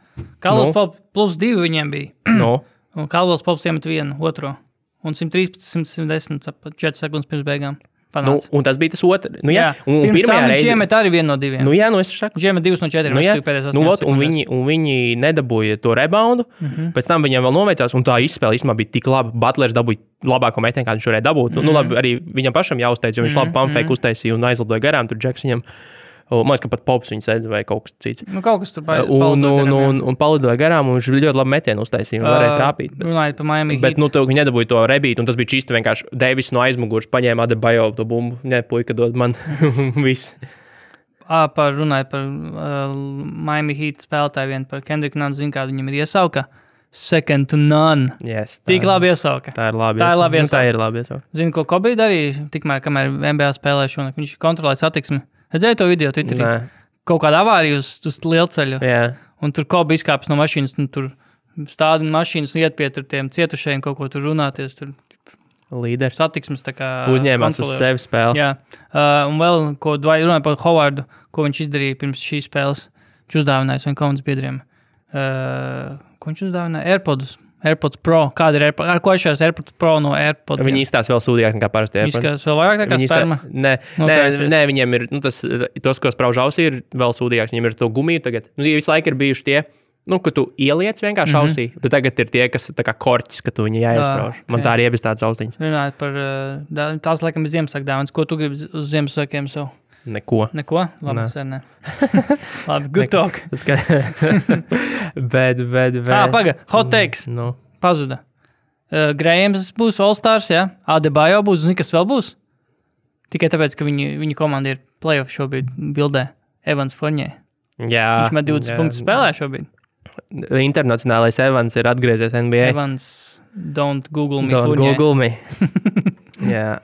Caldwells Pops +2 viņiem bija. Un Caldwells Pops iemet 1, otro. Un 113, 110, 4 sekundes pirms beigām. Un tas bija tas otrs. Un pirms tam viņš iemet arī 1 no 2. Es saku. Viņš iemet 2 no 4. Un viņi nedabūja to reboundu. Pēc tam viņiem vēl noveicās, un tā izspēle īstenībā bija tik laba. Butlers dabūja labāko metienu, kā viņš varēja dabūt. Labi, arī viņam pašam jāuzteic, jo viņš labi pumpfake uztaisīja un aizlidoja garām. Tur Džeks viņam... Man liekas, ka pat Pops viņu sēdz vai kaut kas cits. Kaut kas tur un palidoja garām, un viņš ļoti labi metienu uztaisīja un varēja trāpīt. Runājot par Miami Heat. Bet viņi nedabūja to rebītu, un tas bija čīsti vienkārši Davis no aizmugurs paņēma Adebayo to bumbu. Nē, puika dod man viss. Runājot par Miami Heat spēlētāju vien par Kendricku Nunn, zinu, kādu viņam ir iesauka. Second to none. Yes, tik labi iesauka. Tā ir labi iesauka. Zinu, ko Kobe darīja, tikmēr, kamēr NBA spēlēja šonakt. Viņš kontrolēja satiksmi. Redzēju to video Twitterī? Kaut kāda avārija uz lielceļu. Un tur Kobe izkāpjas no mašīnas, un tur stādina mašīnas un iet pie tiem cietušajiem kaut ko tur runāties. Tur līderis. Satiksmes tā kā uzņēmās uz sevi spēli. Jā. Un vēl, ko runāja par Howardu, ko viņš izdarīja pirms šīs spēles. Viņš uzdāvināja saviem komandas biedriem. Ko viņš uzdāvināja? AirPods Pro. Kāda ir AirPods? Ar ko šajās AirPods Pro no AirPods? Viņi izstās vēl sūdīgāk nekā parasti AirPods. Izskatās vēl vairāk nekā sperma? Nē, viņiem ir, tos, ko sprauž ausī, ir vēl sūdīgāks. Viņiem ir to gumiju tagad. Visu laiku ir bijuši tie, ka tu ieliec vienkārši ausī. Tad tagad ir tie, kas tā kā korķis, ka tu viņu jāiesprauž. Man tā arī iebis tāds austiņas. Runājot par, tās laikam ir Ziemassvētku dāvanas. Ko tu gribi uz Ziemassvētkiem sev? Neko? Labi, sērnē. Labi, good talk. bet. Paga, hot takes. Pazuda. Grahams būs All-Stars, jā? Adebayo būs, zini, kas vēl būs? Tikai tāpēc, ka viņa komanda ir playoff šobrīd bildē. Evans Fournier. Jā. Viņš met 20 punktus spēlē šobrīd. Internacionālais Evans ir atgriezies NBA. Evans, don't Google me Don't Fournier. Google me. Jā,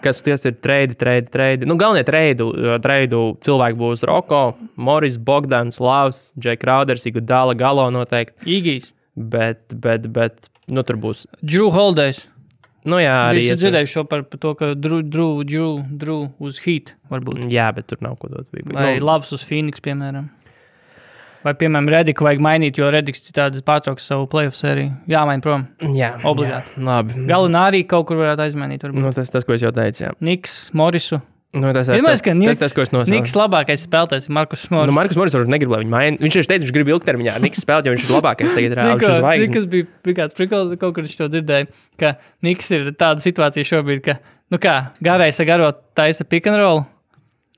kas ties ir trade. Galvenie treidu cilvēki būs Roko, Morris, Bogdans, Lavs, Jay Crowders, Iguodala, Galo noteikti. Igijs. Bet, tur būs. Drew Holidays. Arī. Es dzirdēju šo par to, ka Drew uz Heat varbūt. Jā, bet tur nav ko dot. Vai Lavs uz Phoenix, piemēram. Vai, piemēram, Rediku vajag mainīt, jo Rediks citādi pārtrauks savu playoff sēriju. Jāmaina prom. Jā. Obligāti. Jā, labi. Galinā arī kaut kur varētu aizmainīt. Tas, ko es jau teicu, jā. Niks, Morisu. Tas, ko es nosaucu. Niks labākais spēlētājs ir Markus Morris. Markus Morris varbūt negrib, lai viņu maina. Viņš teica, viņš grib ilgtermiņā ar Niks spēlēt, jo viņš ir labākais tagad reāli. Cik kas bija kāds prikals, kaut kur viņš to dzirdēja, ka Niks ir tāda situācija šobrīd, ka, garais ar garo taisa pick and roll,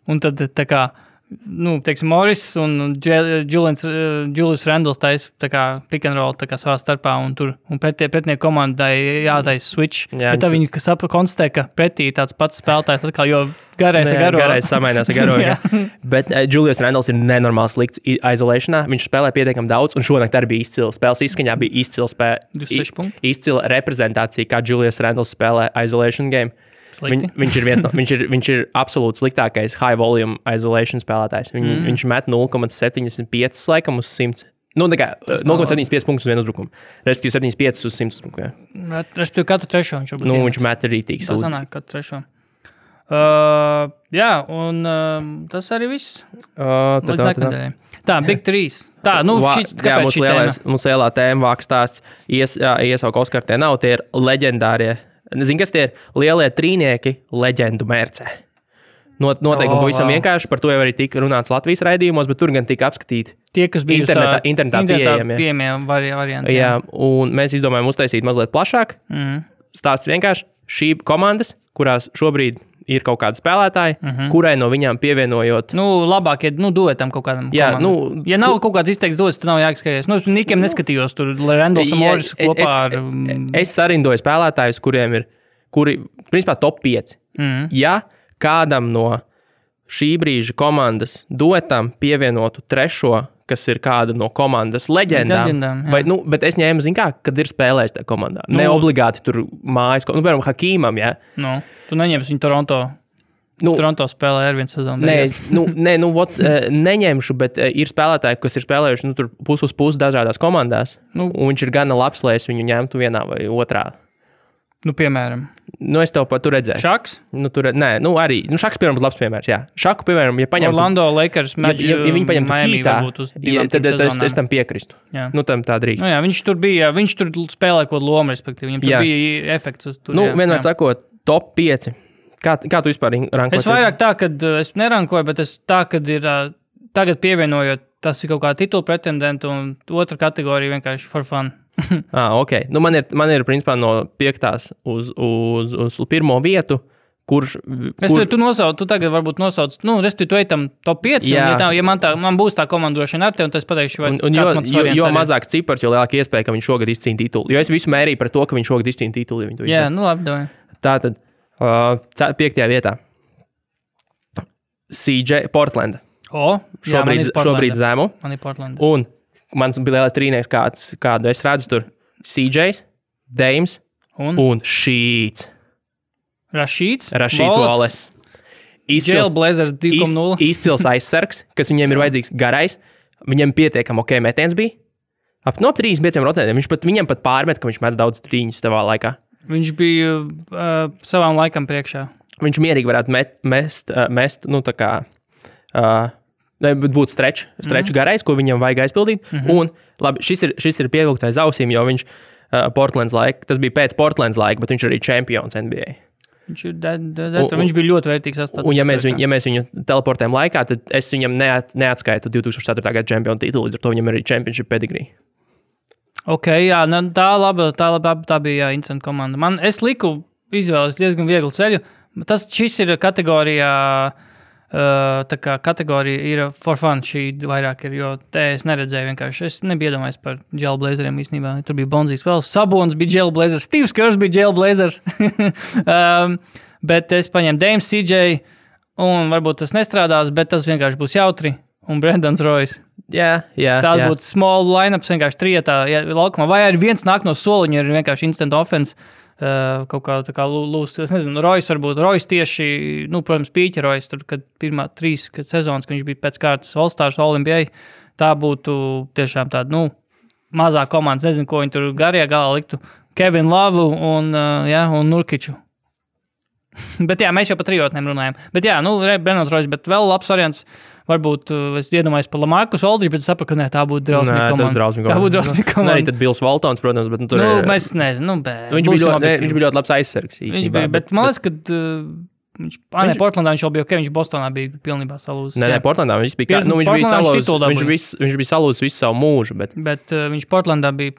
un tad tā kā, teiksim, Morris un Julius Randles taisa tā kā pick and roll tā kā savā starpā, un pretnieku komandai jātaisa switch. Bet tā viņi konstatē, ka pretī tāds pats spēlētājs atkal, jo garais ar garo. Garais samainās ar garo, jā. Bet Julius Randles ir nenormāli slikts izolēšanā. Viņš spēlē pietiekami daudz, un šonakt arī bija izcila. Spēles izskaņā bija izcila reprezentācija, kā Julius Randles spēlē isolation game. Viņš ir absolūti sliktākais high volume isolation spēlētājs. Viņš met 0,75 laikam uz 100. 0,75 punktus uz vienu uzbrukumu. Respektīvi 75 uz 100 uzbrukumu. Respektīvi katru trešo viņš varbūt. Viņš met rītīgi sūdi. Tā sanāk katru trešo. Un tas arī viss. Tā, Big 3. Tā, kāpēc šī tēma? Mums lielā tēma vākstāsts iesauka Oskar, tie nav, tie ir leģendārie. Zini, kas tie ir lielie trīnieki leģendu mērcē. Noteikumi pavisam vienkārši, par to jau arī tika runāts Latvijas raidījumos, bet tur gan tika apskatīti tie, kas bija internetā pieejami varianti. Jā, un mēs izdomājām uztaisīt mazliet plašāk. Stāsts vienkārši šī komandas, kurās šobrīd ir kaut kādi spēlētāji, kurai no viņām pievienojot... labāk, duetam kaut kādam komandam. Ja nav kaut kāds izteikts dots, tad nav jāskaties. Nikiem neskatījos tur, Randles un Morris kopā ar... Es sarindoju spēlētājus, kuri, principā, top 5. Ja kādam no šī brīža komandas dotam pievienotu trešo, kas ir kāda no komandas leģendām bet es ņēmu, kad ir spēlējis tajā komandā. Ne obligāti tur mājas, piemēram, Hakīmam, jā. Tu neņemsi viņu Toronto. Toronto spēlē ar vienu sezonu. Neņemšu, bet ir spēlētāji, kas ir spēlējuši tur pus uz pusi dažādās komandās, un viņš ir gana labs, lai es viņu ņemtu vienā vai otrā. Piemēram. Es tev pat tur redzēšu. Šaks? Arī. Šaks, piemēram, būtu labs piemērs, jā. Šaku, piemēram, ja paņemtu... Orlando Lakers, ja viņi paņemtu Heatā, tad es tam piekristu. Tam tā drīkst. Viņš tur spēlē kaut lomu, respektīvi. Viņam tur bija efekts. Vienmēr sakot, top 5. Kā tu vispār rankoji? Es vairāk tā, kad es nerankoju, bet es tā, kad ir tagad pievienojot, tas ir kaut kā titula pretendentu un otra kategorija vienkārši for fun. Ok. Man ir principā no 5. uz pirmo vietu, kurš... Tu tagad varbūt nosauc, respektīvi, tu ejam top 5, ja man būs tā komandošana ar tevi, un tas pateikšu, vai kāds mans variants. Jo mazāk cipars, jo lielāka iespēja, ka viņš šogad izcīna titulu. Jo es visu mērīju par to, ka viņš šogad izcīna titulu. Jā, labi, davai. Tātad, 5. vietā. CJ Portland. Šobrīd zemu. Man ir Portland. Un mans bija lielais trīnieks, kādu es redzu tur. CJs, Dames un Sheets. Rashīds Wallace. Jailblazers 2.0. Izcils aizsargs, kas viņiem ir vajadzīgs garais. Viņam pietiekam metiens bija. Ap 35 rotētiem. Viņam pat pārmet, ka viņš met daudz trīņus tavā laikā. Viņš bija savām laikam priekšā. Viņš mierīgi varētu mest tā kā... būtu stretch garais, ko viņam vajag aizpildīt. Un, labi, šis ir pievilkts aiz ausīm, jo viņš Portlands laika, tas bija pēc Portlands laika, bet viņš arī čempions NBA. Viņš bija ļoti vērtīgs sastāvs. Un ja mēs viņu teleportējam laikā, tad es viņam neatskaitu 2004. Gada čempionu titulu, līdz ar to viņam arī championship pedigree. Ok, jā, tā bija interesanta komanda. Es liku izvēles diezgan vieglu ceļu. Šis ir kategorijā... Tā kā kategorija ir for fun, šī vairāk ir, jo te es neredzēju vienkārši. Es nebiju iedomājies par Jailblazeriem īstenībā. Tur bija Bonzijs vēl, Sabons bija Jailblazers, Steve's Kerrs bija Jailblazers. Bet es paņēmu Dames, CJ, un varbūt tas nestrādās, bet tas vienkārši būs jautri. Un Brandons Royce. Jā. Tāda būtu small line-ups vienkārši trietā laukumā. Vai arī viens nāk no soliņa, ir vienkārši instant offense. Kaut kā tā kā lūst, es nezinu, Royce varbūt, Royce tieši, protams, Pīķa Royce, tur, kad pirmā 3 sezonas, kad viņš bija pēc kārtas All-Stars, All-NBA, tā būtu tiešām tāda, mazā komandas, nezinu, ko viņi tur garajā galā liktu, Kevin Love un Nurkiču. Bet jā, mēs jau par trijotnēm runājam. Bet jā, Brandons Royce, bet vēl labs variants. Varbūt es iedomājos par Lamarcus Aldridge, bet es sapratu, ka tā būtu drausmīga komanda. Tā būtu drausmīga komanda. Arī tad Bills Waltons, protams, bet tur... Mēs nezinu, viņš bija ļoti labs aizsargs. Viņš bija, bet man liekas, ka Portlandā viņš jau bija viņš Bostonā bija pilnībā salūzis. Nē, Portlandā viņš bija viņš bija salūzis visu savu mūžu. Bet viņš Portlandā bija,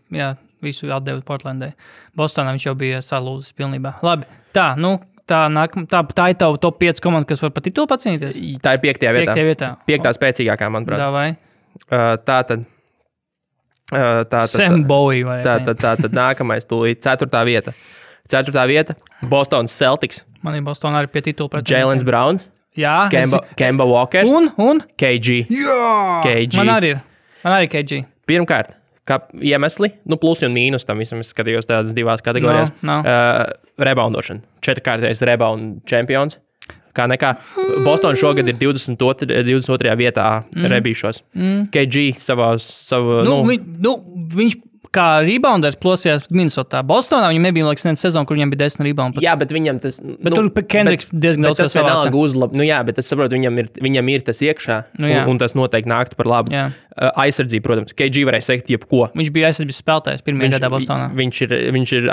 visu atdevis Portlandai. Bostonā viņš jau bija salūzis pilnībā. Labi, tā ir tava top 5 komanda, kas var par titulu pacīnīties? Tā ir 5. vietā. 5. spēcīgākā, manuprāt. Davai. Sam Bowie vai tātad nākamais tūlīt 4. vieta. 4. vieta Bostonas Celtics. Man ir Bostonā arī pie titula pret Jaylen Brown. Jā. Kemba Walkers. Un? KG. Jā. KG. Man arī KG. Pirmkārt, kā iemesli, plus un mīnus tam visam, es skatījos tādas 2 kategorijās. Reboundošana. 4-kārtais rebound čempions. Kā nekā. Boston šogad ir 22. vietā rebīšos. KG viņš kā rebounders plosījās Minnesotā. Bostonā viņam nebija neviena sezona, kur viņam bija 10 rebounds. Jā, bet viņam tas... Bet tur Kendricks diezgan daudz savāca. Tas vienalga uzlab. Jā, bet es saprotu, viņam ir tas iekšā, un tas noteikti nāktu par labu. Aizsardzība, protams. KG varēja sekt jebko. Viņš bija aizsardzības spēlētājs pirmajā gadā Bostonā. Viņš ir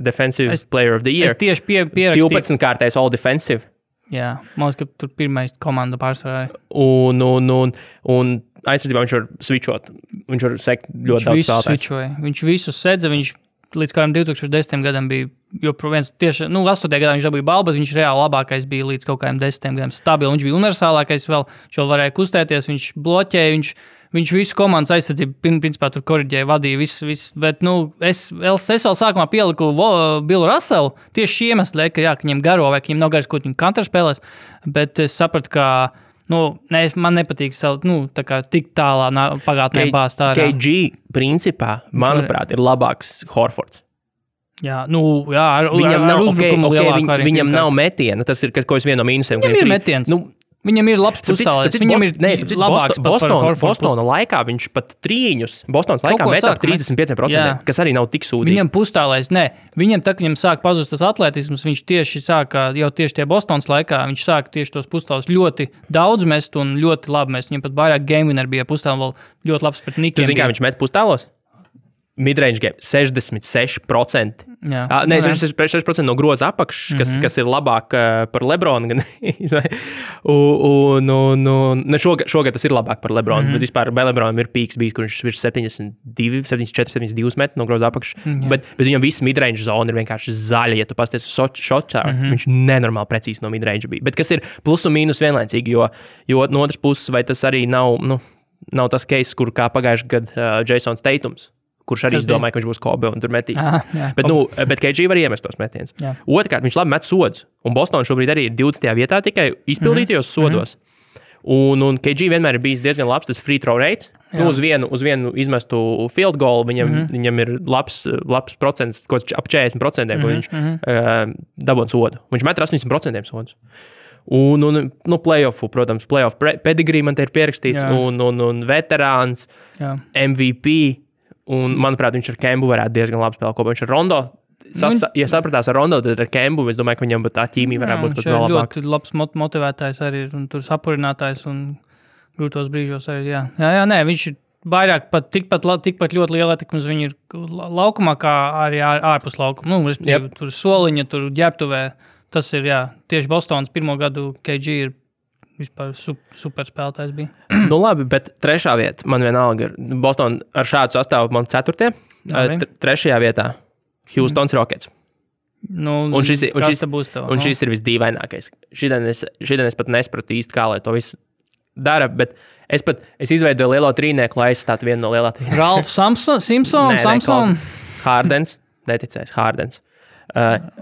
Defensive Player of the Year. Es tieši pierakstīju. 12-kārtais All Defensive. Jā, man liekas, ka tur pirmais komanda pārsvarā. Un aizsardzībā viņš var switchot. Viņš var sekt ļoti daudz spēlētājs. Viņš visus sedza, viņš līdz kādam 2010. gadam bija joprojām tieši, 8. gadā viņš dabūja balvu, bet viņš reāli labākais bija līdz kaut kādiem 10. gadam stabili. Viņš bija universālākais vēl, viņš vēl varēja kustēties, viņš bloķēja, viņš visu komandas aizsardzību principā tur koriģēja, vadīja visu. Bet, es vēl sākumā pieliku Billu Russellu tieši šī iemesla, ka viņam garo vai ka viņam nav garas, ko viņam kantra spēlēs, bet es sapratu, ka man nepatīk tik tālā pagātnē bāzt ārā. KG principā, manuprāt, ir labāks Horfords. Jā, viņam nav metiena. Tas ir kaut kas viens no mīnusiem. Viņam ir metiens. Viņam ir labs pustālais. Viņam ir labāks Bostona laikā viņš pat trīņus. Bostonas laikā metā 35%, kas arī nav tik sūdīgi. Viņam pustālais, viņam sāk pazust tas atletisms, viņš tieši sāka, jau tieši tie Bostonas laikā, viņš sāka tieši tos pustālus ļoti daudz mest un ļoti labi mest. Viņam pat vairāk game winner bija pustāli vēl ļoti labs pret Nikiem. Tu zini, kā viņš met pustālos? Midrange game 66%. Nē, 66% no groza apakšas, kas ir labāk par Lebronu. Šogad tas ir labāk par Lebronu, bet vispār Lebronam ir pīks bijis, kur viņš virs 74-72 metru no groza apakšas. Bet viņam viss midrange zona ir vienkārši zaļa, ja tu pasties uz shotā. Viņš nenormāli precīzi no midrange bija. Bet kas ir plus un mīnus vienlaicīgi, jo no otras puses, vai tas arī nav tas case, kur kā pagājuši gadu Jasons Tatums, kurš arī domāja, ka viņš būs Kobe un tur metīs. Bet KG var iemest tos metienus. Otrkārt, viņš labi met sodus. Un Boston šobrīd arī ir 20. vietā tikai izpildītajos sodos. Un KG vienmēr ir bijis diezgan labs tas free throw rates. Uz vienu izmestu field goal viņam ir labs procents, ap 40%, ko viņš dabūna sodu. Viņš met 80% sodus. Un playoffu, protams, playoff pedigree man te ir pierakstīts, un veterāns, MVP. Un, manuprāt, viņš ar Kembu varētu diezgan labi spēlēt kopā. Viņš ar Rondo, ja sapratās ar Rondo, tad ar Kembu, es domāju, ka viņam tā ķīmija varētu būt pat vēl labāk. Ļoti labs motivētājs arī, un tur sapurinātājs, un grūtos brīžos arī, viņš ir vairāk tikpat ļoti liela ietekme uz viņu ir laukumā, kā arī ārpus laukuma. Tur soliņa, tur ģērbtuvē, tas ir, tieši Bostonas pirmo gadu KG ir vispār super spēlētājs bija. Labi, bet 3. vieta man vienalga ir Boston ar šādu sastāvu man 4. 3. vietā Houstons Rockets. Un šis ir visdīvainākais. Šodien es pat nespratu īsti, kā lai to visu dara, bet es izveidoju lielo trīnieku, lai aizstātu vienu no lielā trīnieku. Ralf Samson. Hardens, neticēs, Hardens.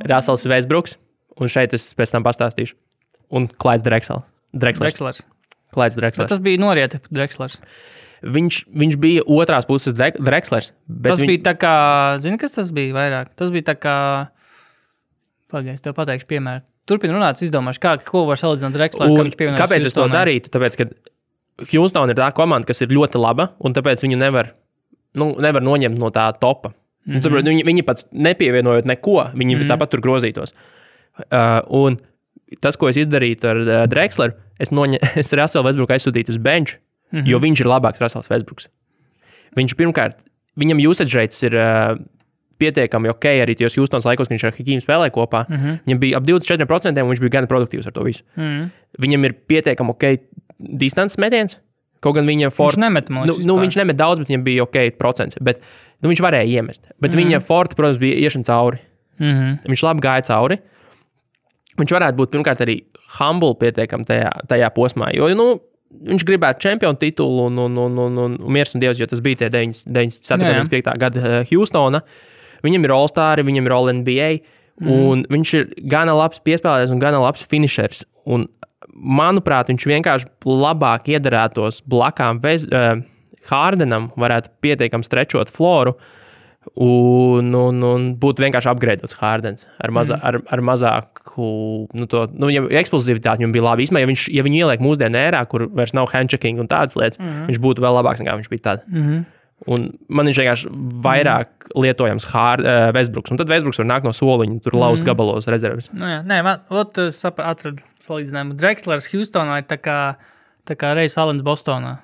Russells Westbrooks, un šeit es pēc tam pastāstīšu. Un Clydes Drexlers. Clydes Drexlers. Tas bija norieta Drexlers. Viņš bija otrās puses Drexlers. Tas bija tā kā, zini, kas tas bija vairāk? Tas bija tā kā, pagaidzi, tev pateikšu piemēru. Turpin runāt, izdomāšu, ko var salīdzināt Drexleru, kā viņš pievienojas. Kāpēc es to darītu? Tāpēc, ka Houston ir tā komanda, kas ir ļoti laba, un tāpēc viņu nevar noņemt no tā topa. Viņi pat nepievienojot neko, viņi tāpat tur grozītos. Un tas, ko es izdarītu ar Drexleru, es Russellu Westbrooku aizsūtītu uz bench, jo viņš ir labāks Russells Westbrooks. Viņš pirmkārt, viņam usage rates ir pietiekami ok arī tajos Houstonas laikos, kad viņš ar Hakīmu spēlēja kopā. Viņam bija ap 24%, un viņš bija gan produktīvs ar to visu. Viņam ir pietiekami ok distances metiens, kaut gan viņa viņš nemet mūs. Viņš nemet daudz, bet viņam bija ok procents, bet viņš varēja iemest. Bet viņa forte, protams, bija iešana cauri. Viņš labi gāja cauri. Viņš varētu būt pirmkārt arī humble pietiekami tajā posmā, jo, viņš gribētu čempionu titulu un miers un dievs, jo tas bija tie 97. gada Houstona. Viņam ir All-Star, viņam ir All-NBA, un viņš ir gana labs piespēlētājs un gana labs finishers. Un, manuprāt, viņš vienkārši labāk iedarētos blakām Hardenam, varētu pietiekami strečot floru, un būtu vienkārši upgradeots Hardens ar mazāku, viņam eksplozivitāti viņam bija labi. Īsmā, ja viņu ieliek mūsdienu ērā, kur vairs nav handchecking un tādas lietas, viņš būtu vēl labāks nekā viņš bija tad. Un man viņš vienkārši vairāk lietojams Westbrooks. Un tad Westbrooks var nākt no soliņa, tur laust gabalos rezerves. Es atradu salīdzinājumu. Drexlers Houstonā ir tā kā Ray Alens Bostonā.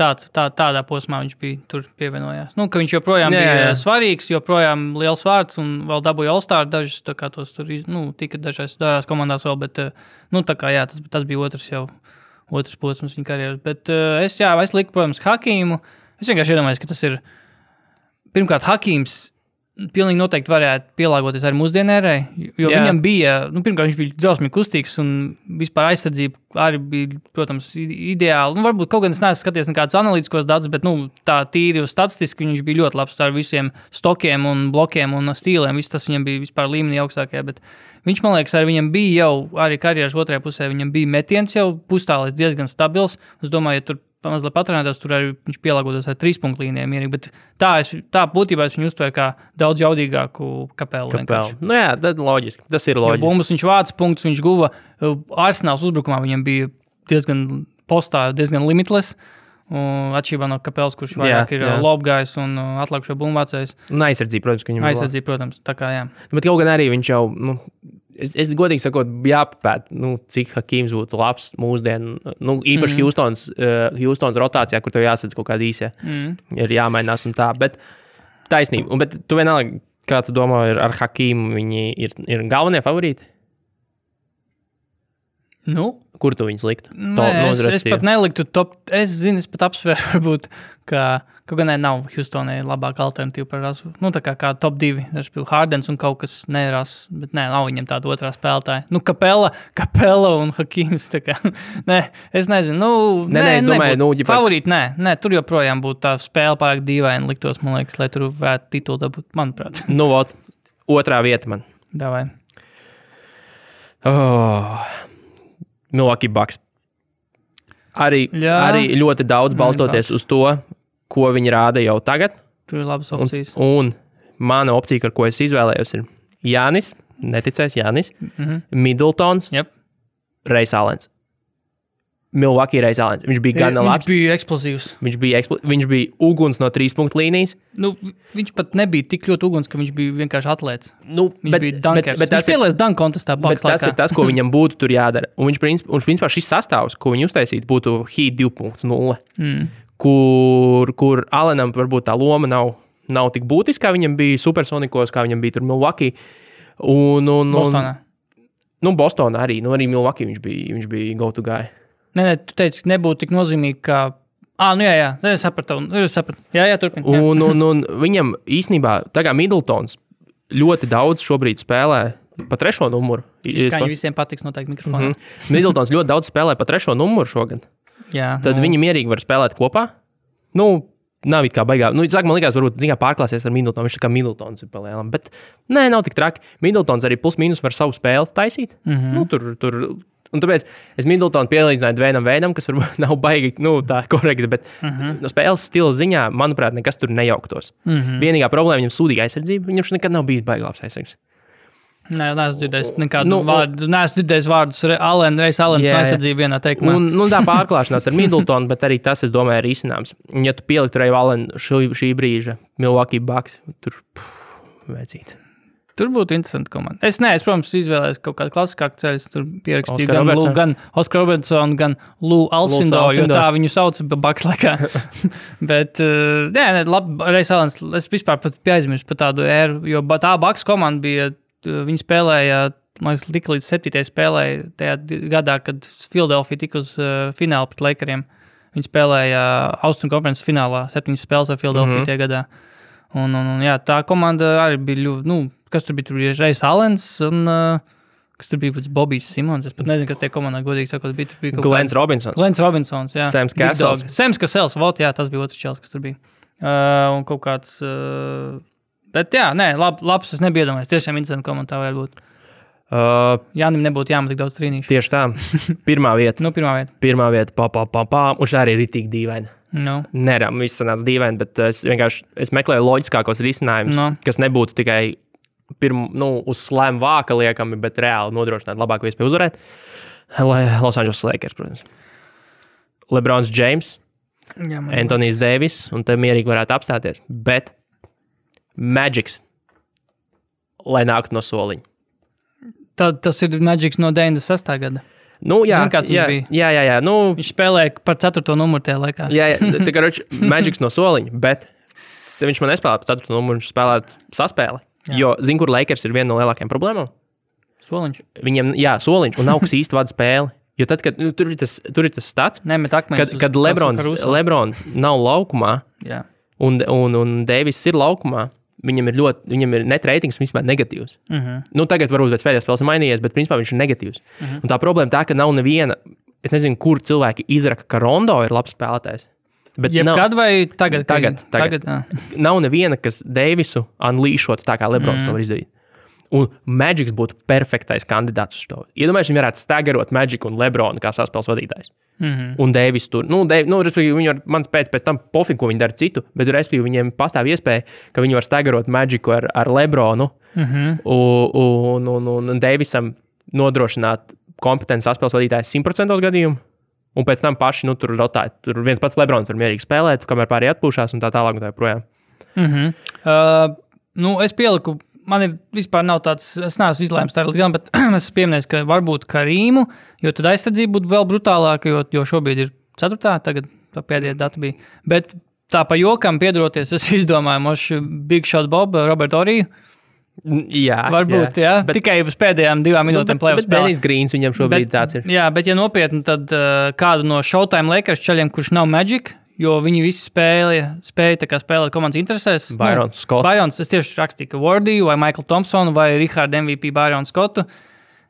Tādā posmā viņš bija tur pievienojās. Ka viņš joprojām bija svarīgs, joprojām liels vārds un vēl dabūja All-Star dažus, tā kā tos tur, tika dažās komandās vēl, bet, tas bija otrs posms viņa karjeras. Bet es liku, protams, Hakīmu. Es vienkārši iedomājos, ka tas ir, pirmkārt, Hakīms pilnīgi noteikti varētu pielāgoties arī mūsdienērai, jo viņam bija, pirmkārt, viņš bija drausmīgi kustīgs un vispār aizsardzība arī bija, protams, ideāli. Varbūt kaut gan es neesmu skaties nekādus analītiskos datus, bet, tā tīri statistiski viņš bija ļoti labs ar visiem stokiem un blokiem un stīliem. Viss tas viņam bija vispār līmenī augstākajā, bet viņš, man liekas, arī viņam bija jau, arī karjeras otrajā pusē, viņam bija metiens jau pustālis diezgan stabils. Es domāju, ja tur mazliet patrenētos, tur arī viņš pielāgotos ar 3-punktu līnijām mierīgi, bet tā būtībā es viņu uztveru kā daudz jaudīgāku Kapelu. Tad loģiski, tas ir loģiski. Bumbas viņš vāca punktus, viņš guva Arsenāls uzbrukumā, viņam bija diezgan postā, diezgan limitless, atšķirībā no Kapelas, kurš vairāk ir lobgājs un atlikušo bumbu vācējs. Un aizsardzība, protams, ka viņam aizsardzība, protams, tā kā jā. Bet kaut gan arī viņš jau, Es godīgi sakot, jāpapēt, cik Hakīms būtu labs mūsdienu, īpaši Houstonas rotācijā, kur tev jāsadz kaut kādi īsie, ir jāmainās un tā, bet taisnība. Bet tu vienalga, kā tu domā, ar Hakīmu viņi ir galvenie favorīti? Kur tu viņus liktu? Es pat neliktu top, es pat apsveru varbūt, ka kaut gan nav Houstonai labāka alternatīva par rasu. Tā kā top 2, Hardens un kaut kas neras, bet nav viņam tāda otrā spēlētāja. Kapela un Hakīms, tā kā. Es nezinu. Es domāju, favorīti, tur joprojām būtu tā spēle pārāk dīvaini liktos, man liekas, lai tur varētu titulu dabūt, manuprāt. Otrā vieta man. Davai. Milwaukee Bucks. Arī ļoti daudz balstoties uz to, ko viņi rāda jau tagad. Tur ir labas opcijas. Un mana opcija, ar ko es izvēlējos, ir Jānis, neticēs Jānis, Middletons, Ray Alens. Milwaukee Ray Alens. Viņš bija gan labs. Viņš bija eksplozīvs. Viņš bija uguns no 3-punktu līnijas. Viņš pat nebija tik ļoti uguns, ka viņš bija vienkārši atlēts. Viņš bija dunkers. Viņš pielēs dunk kontestā Bucks laikā. Tas ir tas, ko viņam būtu tur jādara. Un viņš principā šis sastāvs, ko viņi uztaisītu, būtu Heat 2.0, kur Allenam varbūt tā loma nav tik būtiska, kā viņam bija Supersonikos, kā viņam bija tur Milwaukee. Bostonā. Bostonā arī. Arī Milwaukee viņš bija go-to guy. Tu teici, ka nebūtu tik nozīmīgi, kā... jā, es sapratu. Jā, turpin. Un viņam īstenībā, tā kā Middletons ļoti daudz šobrīd spēlē pa 3. numuru. Skaņi visiem patiks noteikti mikrofonā. Middletons ļoti daudz spēlē pa 3. numuru šogad. Jā. Tad viņi mierīgi var spēlēt kopā. Nav it kā baigā. Sāk, man likās, varbūt pārklāsies ar Middletonu. Viņš tā kā Middletons ir palielam. Bet nav tik traki. Middletons arī plus mīnus var savu spēli taisīt. Tur un tāpēc es Middletonu pielīdzināju Dvainam Veidam, kas varbūt nav baigi, tā korekti, bet no spēles stila ziņā, manuprāt, nekas tur nejauktos. Vienīgā problēma viņam sūdīga aizsardzība. Viņam nekad nav bijis baigi labs aizsargs. Neesmu dzirdējis nekādu vārdu. Neesmu dzirdējis vārdus Ray Alens aizsardzību vienā teikumā. Tā pārklāšanās ar Middletonu, bet arī tas, es domāju, ir izcinājums. Ja tu pieliktu Ray Allen šī brīža Milwaukee Bucks, tur vajadzīt. Tur būtu interesanti komanda. Es, protams, izvēlējos kaut kādu klasiskāku ceļu. Tur pierakstīju gan Oskar Robertsonu, gan Lou Alcindor, jo tā viņu sauc Bucks laikā. Bet, labi, Reis Alens, es vispār pat pieaizmirstu par tādu ēru, jo tā Bucks komanda bija, viņi spēlēja, man liekas, tika līdz 7. spēlēja tajā gadā, kad Philadelphia tika uz finālu pret Lakeriem. Viņi spēlēja Austrum konferences finālā, 7 spēles ar Philadelphia tajā gadā. Un jā, tā komanda arī bija ļoti, kas tur bija? Tur bija Reis Alens un kas tur bija Bobijs Simons. Es pat nezinu, kas tie komandā godīgi sakot bija. Tur bija Glens Robinsons, jā. Sams Cassels. Sams Cassels, jā, tas bija otrs čels, kas tur bija. Un kaut kāds, bet jā, labs, es nebiju iedomājies. Tiešām interesanti komanda tā varētu būt. Jānim nebūtu jāmet tik daudz trīnīšu. Tieši tā. Pirmā vieta. Pirmā vieta, un šā arī ir tik dīvaini. No. Nerām, viss sanāca dīvaini, bet es meklēju loģiskākos risinājumus, kas nebūtu tikai uz slēm vāka liekami, bet reāli nodrošināt labāko iespēju uzvarēt. Los Angeles Lakers, protams. LeBrons James, Anthony's Davis, un te mierīgi varētu apstāties, bet Magics, lai nāktu no soliņa. Tas ir Magics no 96. gada. Jā. Viņš spēlēja par 4. numuru tajā laikā. Jā, tā kā Magics no soliņa, bet viņš man nespēlē par 4. numuru, viņš spēlē saspēli. Jo, kur Lakers ir viena no lielākajām problēmām? Soliņš. Viņam, soliņš, un nav kas īsti vada spēli. Jo tad, kad tur ir tas stats, kad Lebrons nav laukumā, un Davis ir laukumā, viņam ir net ratings vispār negatīvs. Tagad varbūt pēc pēdējās spēles mainījies, bet principā viņš ir negatīvs. Un tā problēma tā, ka nav neviena, es nezinu, kur cilvēki izraka, ka Rondo ir labs spēlētājs. Jebkad vai tagad? Tagad. Nav neviena, kas Davisu unleashot tā kā Lebrons to var izdarīt. Un Magics būtu perfektais kandidāts uz to. Iedomājies, viņi varētu stagarot Magic un Lebronu kā saspēles vadītājs. Un Davis tur. Respektīvi, viņi var man pēc tam pofīgi, ko viņi dara citu, bet respektīvi viņiem pastāv iespēja, ka viņi var stagarot Magicu ar Lebronu un Davisam nodrošināt kompetenci saspēles vadītājs 100% gadījumu. Un pēc tam paši tur rotēt. Tur viens pats Lebrons var mierīgi spēlēt, kamēr pārējie atpūšās un tā tālāk un tā projām. Es pieliku, man ir vispār nav tāds, es neesmu izlēms tā gan, bet es pieminēju, ka varbūt Karīmu, jo tad aizsardzība būtu vēl brutālāka, jo šobrīd ir 4. tagad tā pēdējā data bija. Bet tā pa jokam piedaroties, es izdomāju mošu Big Shot Bob, Robert Oriju. Jā, varbūt, jā. Bet, tikai uz pēdējām 2 minūtēm play-off spēlē. Bet Dennis Greens viņam šobrīd tāds ir. Jā, bet ja nopietni, tad kādu no Showtime Lakers čaļiem, kurš nav Magic, jo viņi visi spēja tā kā spēlēt komandas interesēs. Byron Scott. Byron, es tieši rakstīju, ka Wardiju vai Michael Thompsonu vai Richard MVP Byron Scottu,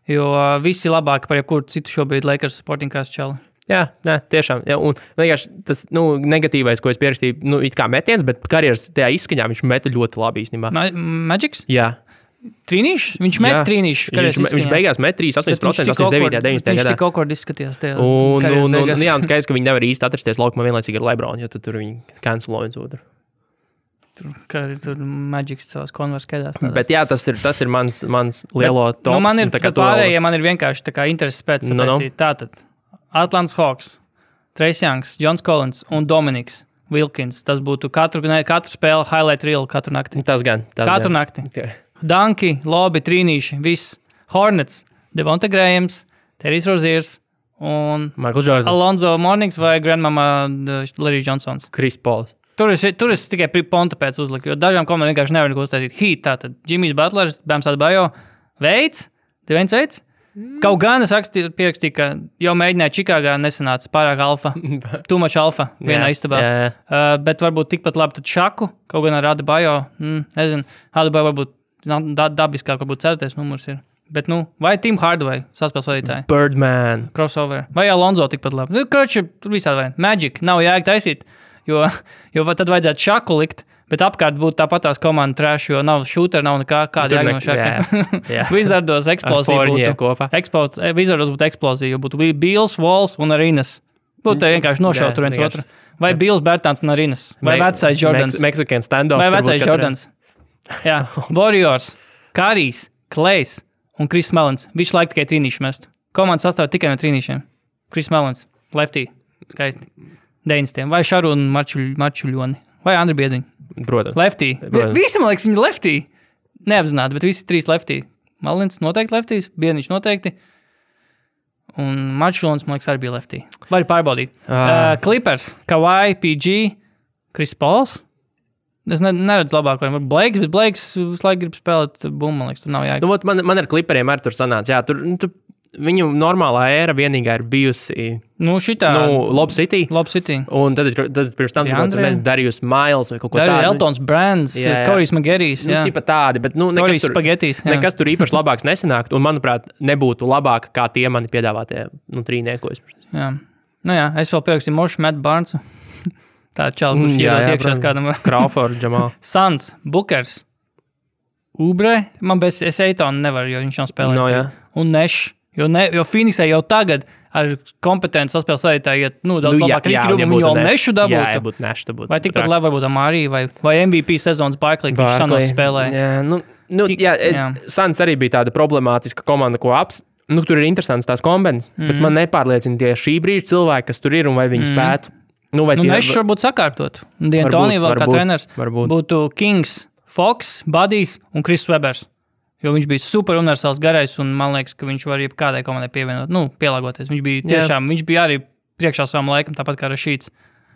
jo visi labāki par jebkuru citu šobrīd Lakers sporting kāds čali. Jā, tiešām. Jā, un vienkārši tas negatīvais, ko es pierakstīju, it kā metiens, bet karjeras tajā izskaņā viņš meta ļoti labi īstenībā. Magics? Jā. Trīnīši? Viņš met trīnīši. Viņš beigās met 3,8%, 89. 90. gadā. Viņš tik awkward izskatījās tajās karjeras. Jā, un skaidrs, ka viņi nevar īsti atrasties laukumā vienlaicīgi ar Lebronu, jo tur viņi cancelo viens otru. Tur Magics savās konvers skaidās. Bet jā, tas ir mans lielo tops. Man ir pārējie, man ir vienkārši tā kā intereses pēc sataisīt. Tātad Atlantas Hawks, Trace Youngs, Johns Collins un Dominiks Wilkins. Tas būtu katru spēli highlight reel katru nakti. Tas gan. Katru nakti. Danki, lobi, trīnīši, viss. Hornets, Devonta Grahams, Terrijs Roziers un Michael Jordan, Alonzo Mornings vai Grandmama Larry Johnsons. Chris Pauls. Tur es tikai ponta pēc uzliku, jo dažām komandām vienkārši nevar neko uztaisīt. Tātad Jimmys Butlers, Bams Adebayo, Deviens Veids. Kaut gan es pierakstīju, ka jau mēģināju Čikāgā, nesanāca pārāk alfa, too much alfa vienā istabā. Bet varbūt tikpat labi tad Šaku, kaut gan ar Adebayo, nezinu, Adebayo varbūt dabiskāk, varbūt 4. numurs ir. Bet, vai Tim Hardaway, saspēles vadītāji? Birdman. Crossover. Vai Alonzo tikpat labi? Kroči, tur visādi varianti. Magic, nav jēga taisīt, jo tad vajadzētu Šaku likt. Bet apkārt būtu tāpatās komanda trash, jo nav shooter, nav nekā, kāda jēga no Šakiem. Wizardos eksplozija būtu. Wizardos būtu eksplozija, jo būtu Bills, Walls un Arinas. Būtu vienkārši nošaut tur viens otru. Vai Bills, Bertāns un Arinas. Vai vecais Jordans. Mexican standoff. Vai vecais Jordans. Jā. Warriors, Kārijs, Klejs un Chris Mellons. Visu laiku tikai trīnīši mest. Komanda sastāv tikai no trīnīšiem. Chris Mellons, lefty, skaisti. 90. Vai Šarūna Marčuļoni. Vai Andri Biediņi. Protams. Lefty. Visi, man liekas, viņi lefty. neapzināti, bet visi 3 lefty. Malins noteikti leftīs, Bieniņš noteikti. Un Marčulons, man liekas, arī bija lefty. Vari pārbaudīt. Clippers, Kawhi, PG, Chris Pauls. Es neredzu labāk, varbūt Blakes, bet Blakes visu laiku grib spēlēt bumbu, man liekas, tur nav jāiet. Nu, man ar Clipperiem arī tur sanāca. Jā, tur viņu normālā ēra vienīgā ir bijusi Lob City. Un tad pirms tam Darius Miles vai kaut ko tādu. Eltons Brands, Korijs Magerijs. Tipa tādi, bet nekas tur īpaši labāks nesanākt. Un, manuprāt, nebūtu labāk kā tie mani piedāvātie trīniekos. Jā. Nu jā, es vēl pierakstīju Mošu Matt Barnesu. Tā čala, kurš iedot iekšās kādam. Crawford, Jamal. Suns, Bookers, Ubre. Es Eitonu nevaru, jo viņš nav spēlējis. Un Neš. Jo Phoenixai jau tagad ar kompetenci saspēles vadītāju iet daudz labāk rīki, un jau Nešu dabūtu. Vai tikpat labi varbūt Amārī vai MVP sezonas Barkley, kurš Suns spēlēja. Suns arī bija tāda problemātiska komanda, ko tur ir interesants tās kombinācijas, bet man nepārliecina tie šī brīža cilvēki, kas tur ir un vai viņi spētu. Nešs varbūt sakārtot. D'Antoni vēl kā treneris būtu Kings, Fox, Buddies un Chris Webers. Jo viņš bija super universāls garais, un man liekas, ka viņš var kādai komandai pievienot, pielāgoties. Viņš bija arī priekšā savam laikam, tāpat kā Rašīts.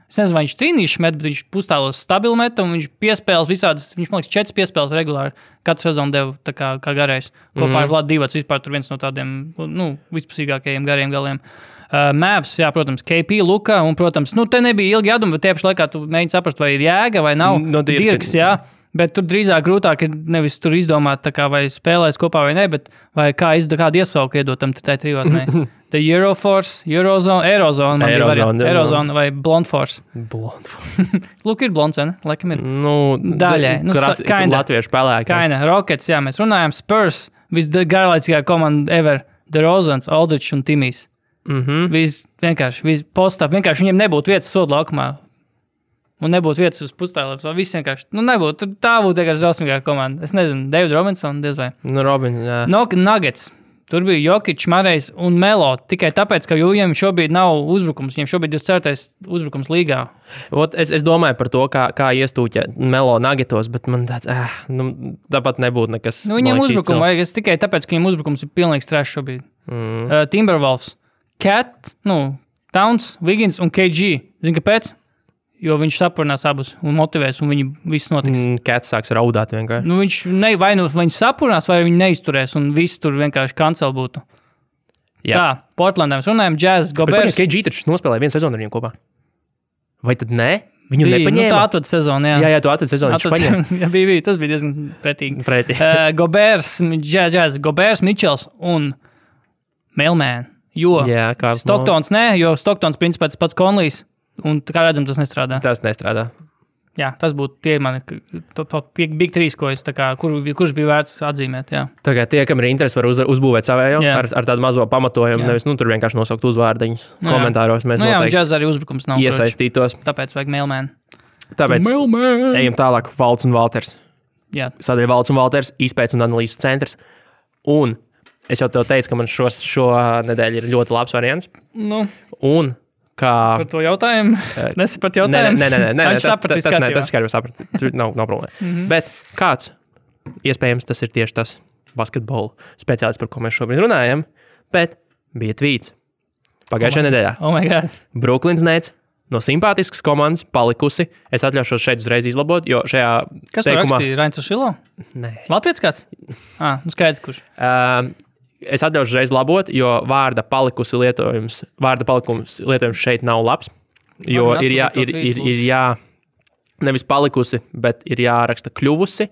Es nezinu, vai viņš trīnīši met, bet viņš pustālos stabilu met, un viņš piespēles visādas, viņš, man liekas, 4 piespēles regulāri katru sezonu deva kā garais. Kopā ar Vladu Divac vispār tur viens no tādiem, vispusīgākajiem gariem galiem. Mavs, jā, protams, KP, Luka, un, protams, te nebija ilgi jāduma, bet tieši laikā tu mēģini saprast, vai ir jēga vai nav. Dirks, jā. Bet tur drīzāk grūtāk ir nevis tur izdomāt, vai spēlēs kopā vai ne, bet vai kādu iesauku iedot tam tai trijotnē. The Euroforce, Eurozone vai Blonde Force. Lūk, ir blonds, vai ne? Laikam ir. Daļai. Latviešu spēlēkās. Kaina, Rockets, jā, mēs runājam. Spurs, visgarlaicīgā komanda ever. DeRozans, Aldridge un Timijs. Vienkārši viņiem nebūtu vietas sodu laukumā. Un nebūtu vietas uz pustālēm. Viss vienkārši, nebūtu. Tā būtu vienkārši drausmīgā komanda. Es nezinu, David Robinson, diez vai. Jā. Nuggets. Tur bija Jokic, Marejs un Melo. Tikai tāpēc, ka viņiem šobrīd nav uzbrukums. Viņiem šobrīd ir 4. uzbrukums līgā. Es domāju par to, kā iestūķa Melo Nuggetos, bet man tāds, tāpat nebūtu nekas. Viņiem uzbrukumu vajag. Es tikai tāpēc, ka viņiem uzbrukums ir pilnīgs trash šobrīd. Timberwolves, Cat, Towns, Wiggins un KG. Zini, kāpēc? Jo viņš sapurnās abus un motivēs, un viņi viss notiks. Cats sāks raudāt vienkārši. Viņš sapurnās, vai viņi neizturēs, un viss tur vienkārši kancel būtu. Jā. Tā, Portlandā mēs runājam, Jazz, Gobers. KG taču nospēlēja vienu sezonu ar viņiem kopā. Vai tad ne? Viņu nepaņēma? Tā atved sezonu, jā. Jā, tu atved sezonu, viņš paņēma. Jā, bija, tas bija diezgan pretīgi. Gobers, Jazz, Gobers, Mitchells un Mailman. Jo Stocktons jo Stocktons principā tas pats Conleys. Un kā redzam, tas nestrādā. Tas nestrādā. Jā, tas būtu tie mani Big 3, ko es kurš bija vērts atzīmēt. Jā. Tagad tie, kam ir interesi, var uzbūvēt savējo ar tādu mazo pamatojumu. Jā. Nevis tur vienkārši nosaukt uzvārdiņus komentāros. Mēs noteikti Jazz arī uzbrukums nav iesaistītos. Tāpēc vajag Mailman. Tāpēc ejam tālāk. Valts un Valters. Jā. Sadaļa Valts un Valters, izpētes un analīzes centrs. Un es jau tev teicu, ka man šo nedēļu ir ļoti labs variants. Un par to jautājumu? Nesaprat jautājumu? Nē, tas skaidrs saprat. Tur nav problēma. Bet kāds, iespējams, tas ir tieši tas basketbola speciālists, par ko mēs šobrīd runājam, bet bija tvīts pagājušajā nedēļā. Oh my God. Brooklyn Nets no simpātiskas komandas palikusi. Es atļaušos šeit uzreiz izlabot, jo šajā Kas teikumā... Rakstīja? Rains Šilo? Nē. Latvijas kāds? Skaidrs, kurš? Es atļaušu uzreiz labot, jo vārda palikums lietojums šeit nav labs. Jo ir nevis palikusi, bet ir jāraksta kļuvusi,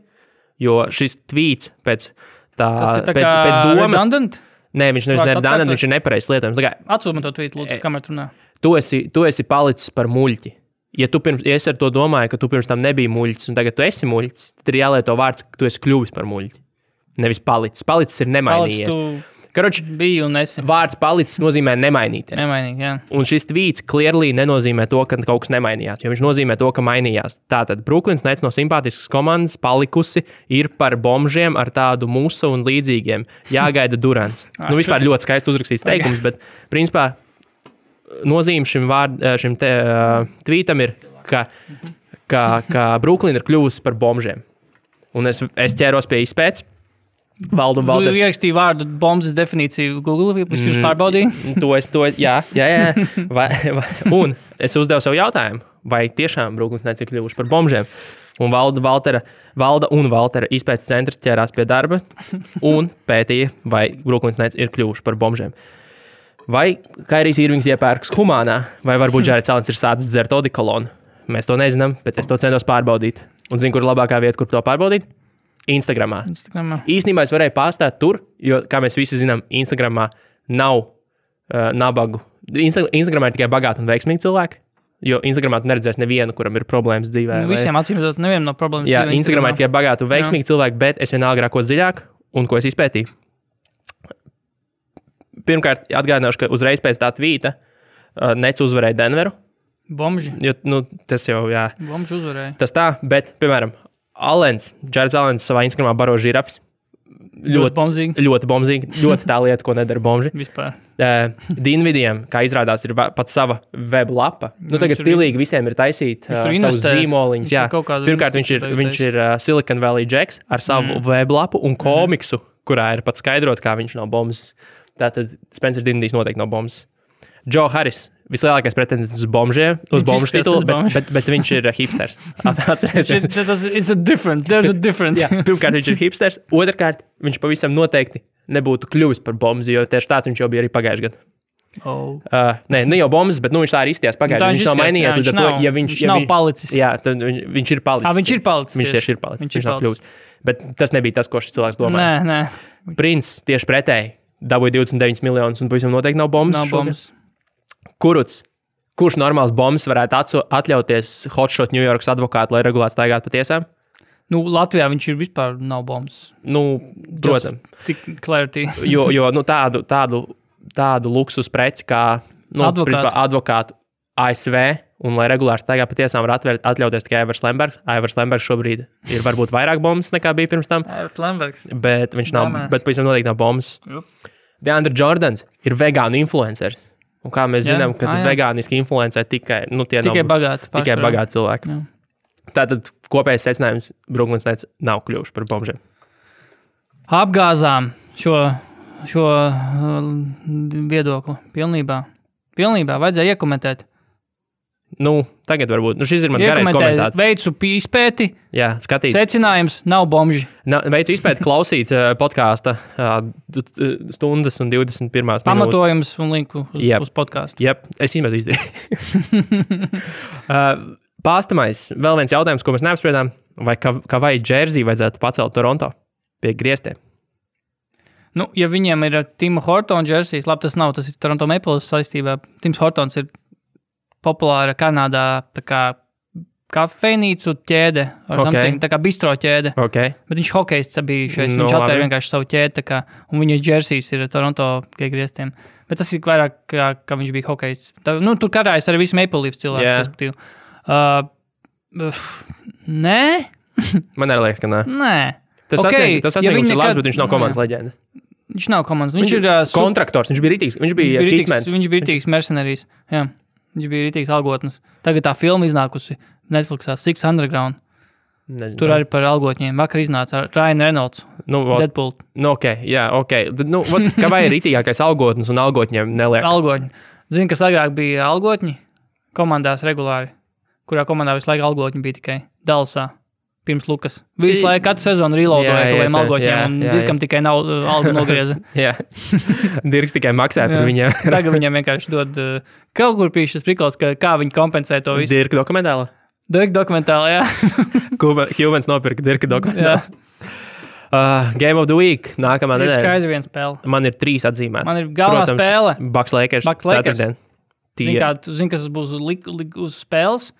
jo šis tvīts pēc domas. Redundant? Nē, viņš nevis redundant, viņš ir nepareizs lietojums. Atsūti man to tvītu, lūdzu, kamēr runā. Tu esi palicis par muļķi. Ja es ar to domāju, ka tu pirms tam nebija muļķis, un tagad tu esi muļķis, tad ir jālieto vārds, ka tu esi kļuvis par muļķi. Nevis palicis. Palicis ir nemainījies. Karoči, bija un esi. Vārds palicis nozīmē nemainīties. Nemainīgi, jā. Un šis tvīts clearly nenozīmē to, ka kaut kas nemainījās, jo viņš nozīmē to, ka mainījās. Tātad Brooklyn Nets no simpātiskas komandas palikusi ir par bombžiem ar tādu musu un līdzīgiem. Jāgaida Durants. Vispār ļoti skaisti uzrakstīts teikums, bet principā nozīme šim tvītam ir, ka Brooklyn ir kļuvusi par bombžiem. Un es ķēros pie izpētes. Valdu un Valders. Tu ierakstīji vārdu bombas definīciju Google, vispirms pārbaudīji? Jā. Un es uzdevu savu jautājumu, vai tiešām Brooklyn Nets ir kļuvuši par bombžiem. Un Valda un Valtera izpētes centrs ķērās pie darba un pētīja, vai Brooklyn Nets ir kļuvuši par bombžiem. Vai Kairijs Irvings iepērks humānā, vai varbūt Jareds Allens ir sācis dzert odikolonu. Mēs to nezinām, bet es to centos pārbaudīt. Un zinu, kur ir labākā vieta, kur to pārbaudīt? Instagramā. Īstenībā es varēju pārstāt tur, jo, kā mēs visi zinām, Instagramā nav nabagu. Instagramā ir tikai bagāti un veiksmīgi cilvēki, jo Instagramā tu neredzēsi nevienu, kuram ir problēmas dzīvē. Visiem acīmredzot, nevienam nav problēmas dzīvē. Jā, Instagramā ir tikai bagāti un veiksmīgi cilvēki, bet es vienalga rākos dziļāk un ko es izpētīju. Pirmkārt, atgādināšu, ka uzreiz pēc tā tvīta Nets uzvarēja Denveru. Bombži. Jo, tas jau, jā. Bombži uzvarēja. Tas tā, bet, piemēram, Jareds Allens savā Instagramā baro žirafs. Ļoti bombzīgi. Ļoti tā lieta, ko nedara bombži. Vispār. Dinvidiem, kā izrādās, ir pat sava web lapa. Tagad stilīgi visiem ir taisīt savus zīmoliņus. Jā. Pirmkārt, viņš ir Silicon Valley Jacks ar savu web lapu un komiksu, kurā ir pat skaidrots, kā viņš nav bombs. Tātad Spencer Dinvidijs noteikti nav bombs. Joe Harris. Vislielākais pretendents uz bombžiem, uz bombžu titulu, bet viņš ir hipsters. There's a difference. Jā, pirmkārt, viņš ir hipsters. Otrkārt, viņš pavisam noteikti nebūtu kļuvis par bombzi, jo tieši tāds viņš jau bija arī pagājuši gadu. Ne jau bombs, bet viņš tā arī izties pagājuši. Viņš nav mainījies līdz ar to, ja viņš nav palicis. Jā, tad viņš ir palicis. Viņš ir palicis. Viņš tieši ir palicis. Viņš nav kļuvis. Bet tas nebija tas, ko šis cilvēks domāja. Nē. Prince tieši pretēji dabūja 29 miljonus un pavisam noteikti nav bombs. Nav bombs. Kurš normāls bombs varētu atļauties hotshot New Yorkas advokātu, lai regulāti staigātu pa tiesām? Latvijā viņš ir vispār nav bombs. Protams. Tik clarity. jo tādu luksus preci kā advokātu ASV un lai regulāri staigā pa tiesām var atļauties tikai Ivars Lembergs. Ivars Lembergs šobrīd ir varbūt vairāk bombs nekā bija pirms tam. Bet viņš nav, bet pavisam noteikti nav bombs. DeAndre Jordans ir vegānu influenceris. Un kā mēs zinām, ka vegāniski influencē tikai bagāti cilvēki. Jā. Tātad kopējais secinājums Brooklyn Nets nav kļuvuši par bombžiem. Apgāzām šo viedokli pilnībā. Pilnībā vajadzēja iekomentēt. Tagad varbūt. Šis ir mans garais komentārs. Veicu izpēti. Jā, skatīt. Secinājums nav bombži. Veicu izpēti klausīt podkāsta stundas un 21 minūtes. Pamatojums un linku uz podkāstu. Jā, es izmetu izdarīju. Pāstamais. Vēl viens jautājums, ko mēs neapspriedām. Vai Kavai Džersī vajadzētu pacelt Toronto pie griestiem? Ja viņiem ir Tima Hortona Džersijs, labi, tas ir Toronto Maple saistībā. Tims Hortons ir populāra Kanādā tā kā kafejnīcu ķēde, tā kā bistro ķēde. Bet viņš hokejists bijušais, viņš atvēra vienkārši savu ķēdi, un viņa džersijs ir Toronto griestiem. Bet tas ir vairāk, kā viņš bija hokejists. Tur karājas arī visi Maple Leafs cilvēki, respektīvi. Nē? Man arī liekas, ka nē. Nē. Tas sasniegums ir labs, bet viņš nav komandas leģenda. Viņš nav komandas. Viņš ir kontraktors, viņš bija rītīgs. Viņš bija hitmans. Viņš bija rītīgs mercenārijs, jā. Viņš bija rītīgs algotnes. Tagad tā filma iznākusi Netflixā Six Underground. Nezinu. Tur arī par algotņiem. Vakar iznāca Ryan Reynolds, Deadpool. Kavai ir rītīgākais algotnes un algotņiem neliek. Algotņi. Zini, kas agrāk bija algotņi? Komandās regulāri. Kurā komandā visu laiku algotņi bija tikai Dallasā. Pirms Lukas. Visu laiku katru sezonu reloadoja kaut algotņiem un Dirkam tikai nav algu nogrieza. Jā. Dirks tikai maksāja par viņiem. Tagad viņiem vienkārši dod kaut kur pīšas šis prikals, kā viņi kompensē to visu. Dirka dokumentāla? Dirka dokumentāla, jā. Humans nopirka Dirka dokumentāla. Game of the Week. Nākamā nedēļa. Ir skaidri viena spēle. Man ir 3 atzīmētas. Man ir galvenā spēle. Bucks Lakers. Ceturtdien. Zini, kas būs uz spēles?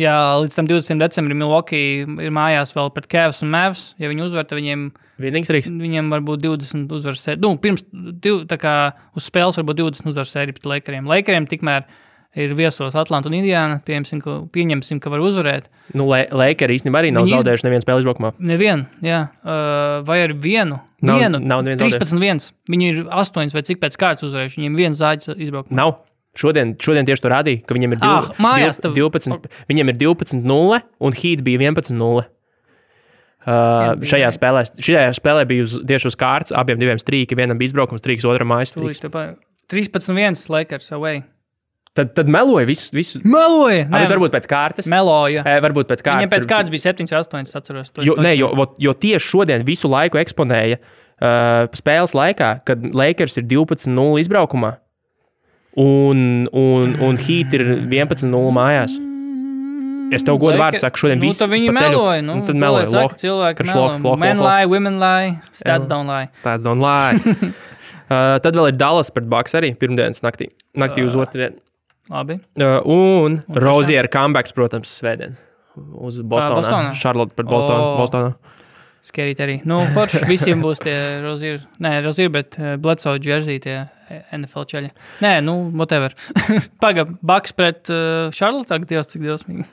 Jā, līdz tam 20. decembrim Milwaukee ir mājās vēl pret Cavs un Mavs. Ja viņi uzvar, tad viņiem varbūt 20 uzvaras sērija. Pirms tā kā uz spēles varbūt 20 uzvaras sērija pret Lakeriem. Lakeriem tikmēr ir viesos Atlanta un Indiana. Pieņemsim, ka var uzvarēt. Lakeri īstenībā arī nav zaudējuši nevienu spēli izbraukumā. Nevienu, jā. Vai ar vienu? Nav 13-1. Viņi ir 8 vai cik pēc kārtas uzvarējuši. Viņiem viens zāģis izbraukumā. Nav. Šodien tieši to rādīja, ka viņiem ir 12, viņiem ir 12-0 un Heat bija 11-0. Šajā spēlē bija tieši uz kārtas, abiem diviem strīki, vienam bija izbraukums, strīks, otram mājas strīks. 13-1 Lakers away. Tad meloja visu. Meloja! Varbūt pēc kārtas. Meloja. Varbūt pēc kārtas. Viņam pēc kārtas bija 7-8, es atceros. Jo tieši šodien visu laiku eksponēja spēles laikā, kad Lakers ir 12-0 izbraukumā un Heat ir 11-0 mājās. Es tev godu vārdu saku, šodien visu. Tad viņi meloja. Tad meloja. Cilvēki meloja. Men lie, women lie, stats don't lie. Stats don't lie. Tad vēl ir Dallas pret Bucks arī pirmdienas naktī uz otrdienu. Labi. Un Rozier comebacks, protams, svētdien uz Bostonā. Charlotte pret Bostonā. Skerīt arī. Forši visiem būs tie Rozier, bet Bledsoe jersey tie NFL čeļi. Whatever. Bucks pret Charlotte, cik dievsmīgi.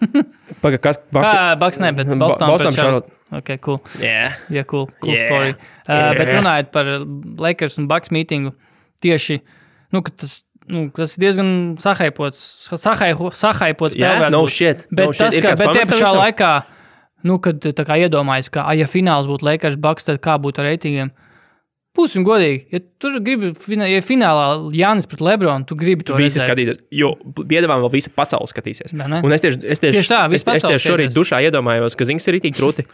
Kas? Bucks ne, bet Boston pret Charlotte. Ok, cool. Yeah, cool story. Bet runājot par Lakers un Bucks mītingu, tieši, tas ir diezgan sahaipots spēlē. No shit. Bet tie pašā laikā, kad tā kā iedomājas, ka, ja fināls būtu Lakers Bucks, tad kā būtu ar reitingiem? Būsim godīgi. Ja tur gribi, ja finālā Jānis pret Lebronu, tu gribi to visi skatīties, jo piedāvām vēl visa pasaule skatīsies. Un es tieši šorīt dušā iedomājos, ka Zings ir ritīgi krūti.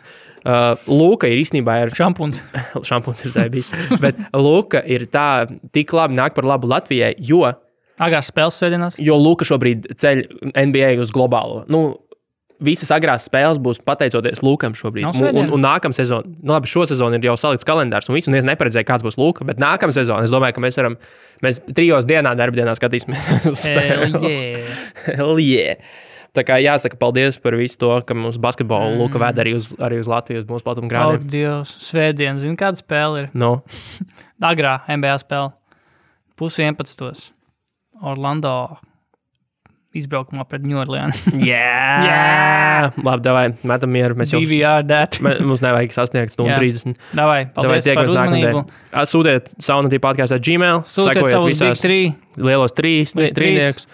Luka ir īstenībā šampuns. Šampuns ir bijis. Bet Luka ir tik labi nāk par labu Latvijai, jo agrās spēles svētdienās. Jo Luka šobrīd ceļ NBA uz globālo. Visas agrās spēles būs pateicoties Lukam šobrīd. Un nākamā sezona, labi, šo sezonu ir jau salikts kalendārs, un neviens neparedzēja, kāds būs Luka, bet nākamā sezona, es domāju, ka mēs 3 dienā, darbdienā skatīsimies spēles. Hell yeah! Tā kā jāsaka paldies par visu to, ka mums basketbolu Luka ved arī uz Latviju, uz mūsu platumgrādiem. Ak, Dievs, svētdien, zini, kāda spēle ir? Agrā NBA spēle. 10:11. Orlando izbraukumā pret New Orleans. Yeah! Labi, davai, metam mieru. DVR that. Mums nevajag sasniegt 30. Davai, paldies par uzmanību. Sūtiet Saunatī podkāstā Gmail. Sūtiet savus Big 3. Lielos trīniekus.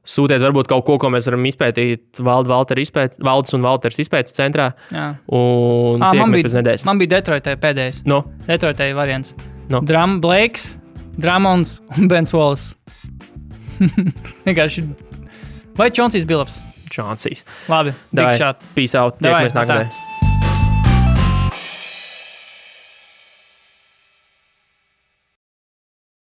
Sūtiet varbūt kaut ko mēs varam izpētīt Valdes un Valters izpētes centrā. Jā. Un tiekamies pēc nedēļas. Man bija Detroitē pēdējais. Detroitē variants. Blakes, Dramons un Bens Wallace. Vienkārši. Vai Čonsijs Bilaps? Čonsijs. Labi, big shot. Peace out. Tiekamies nākamajā.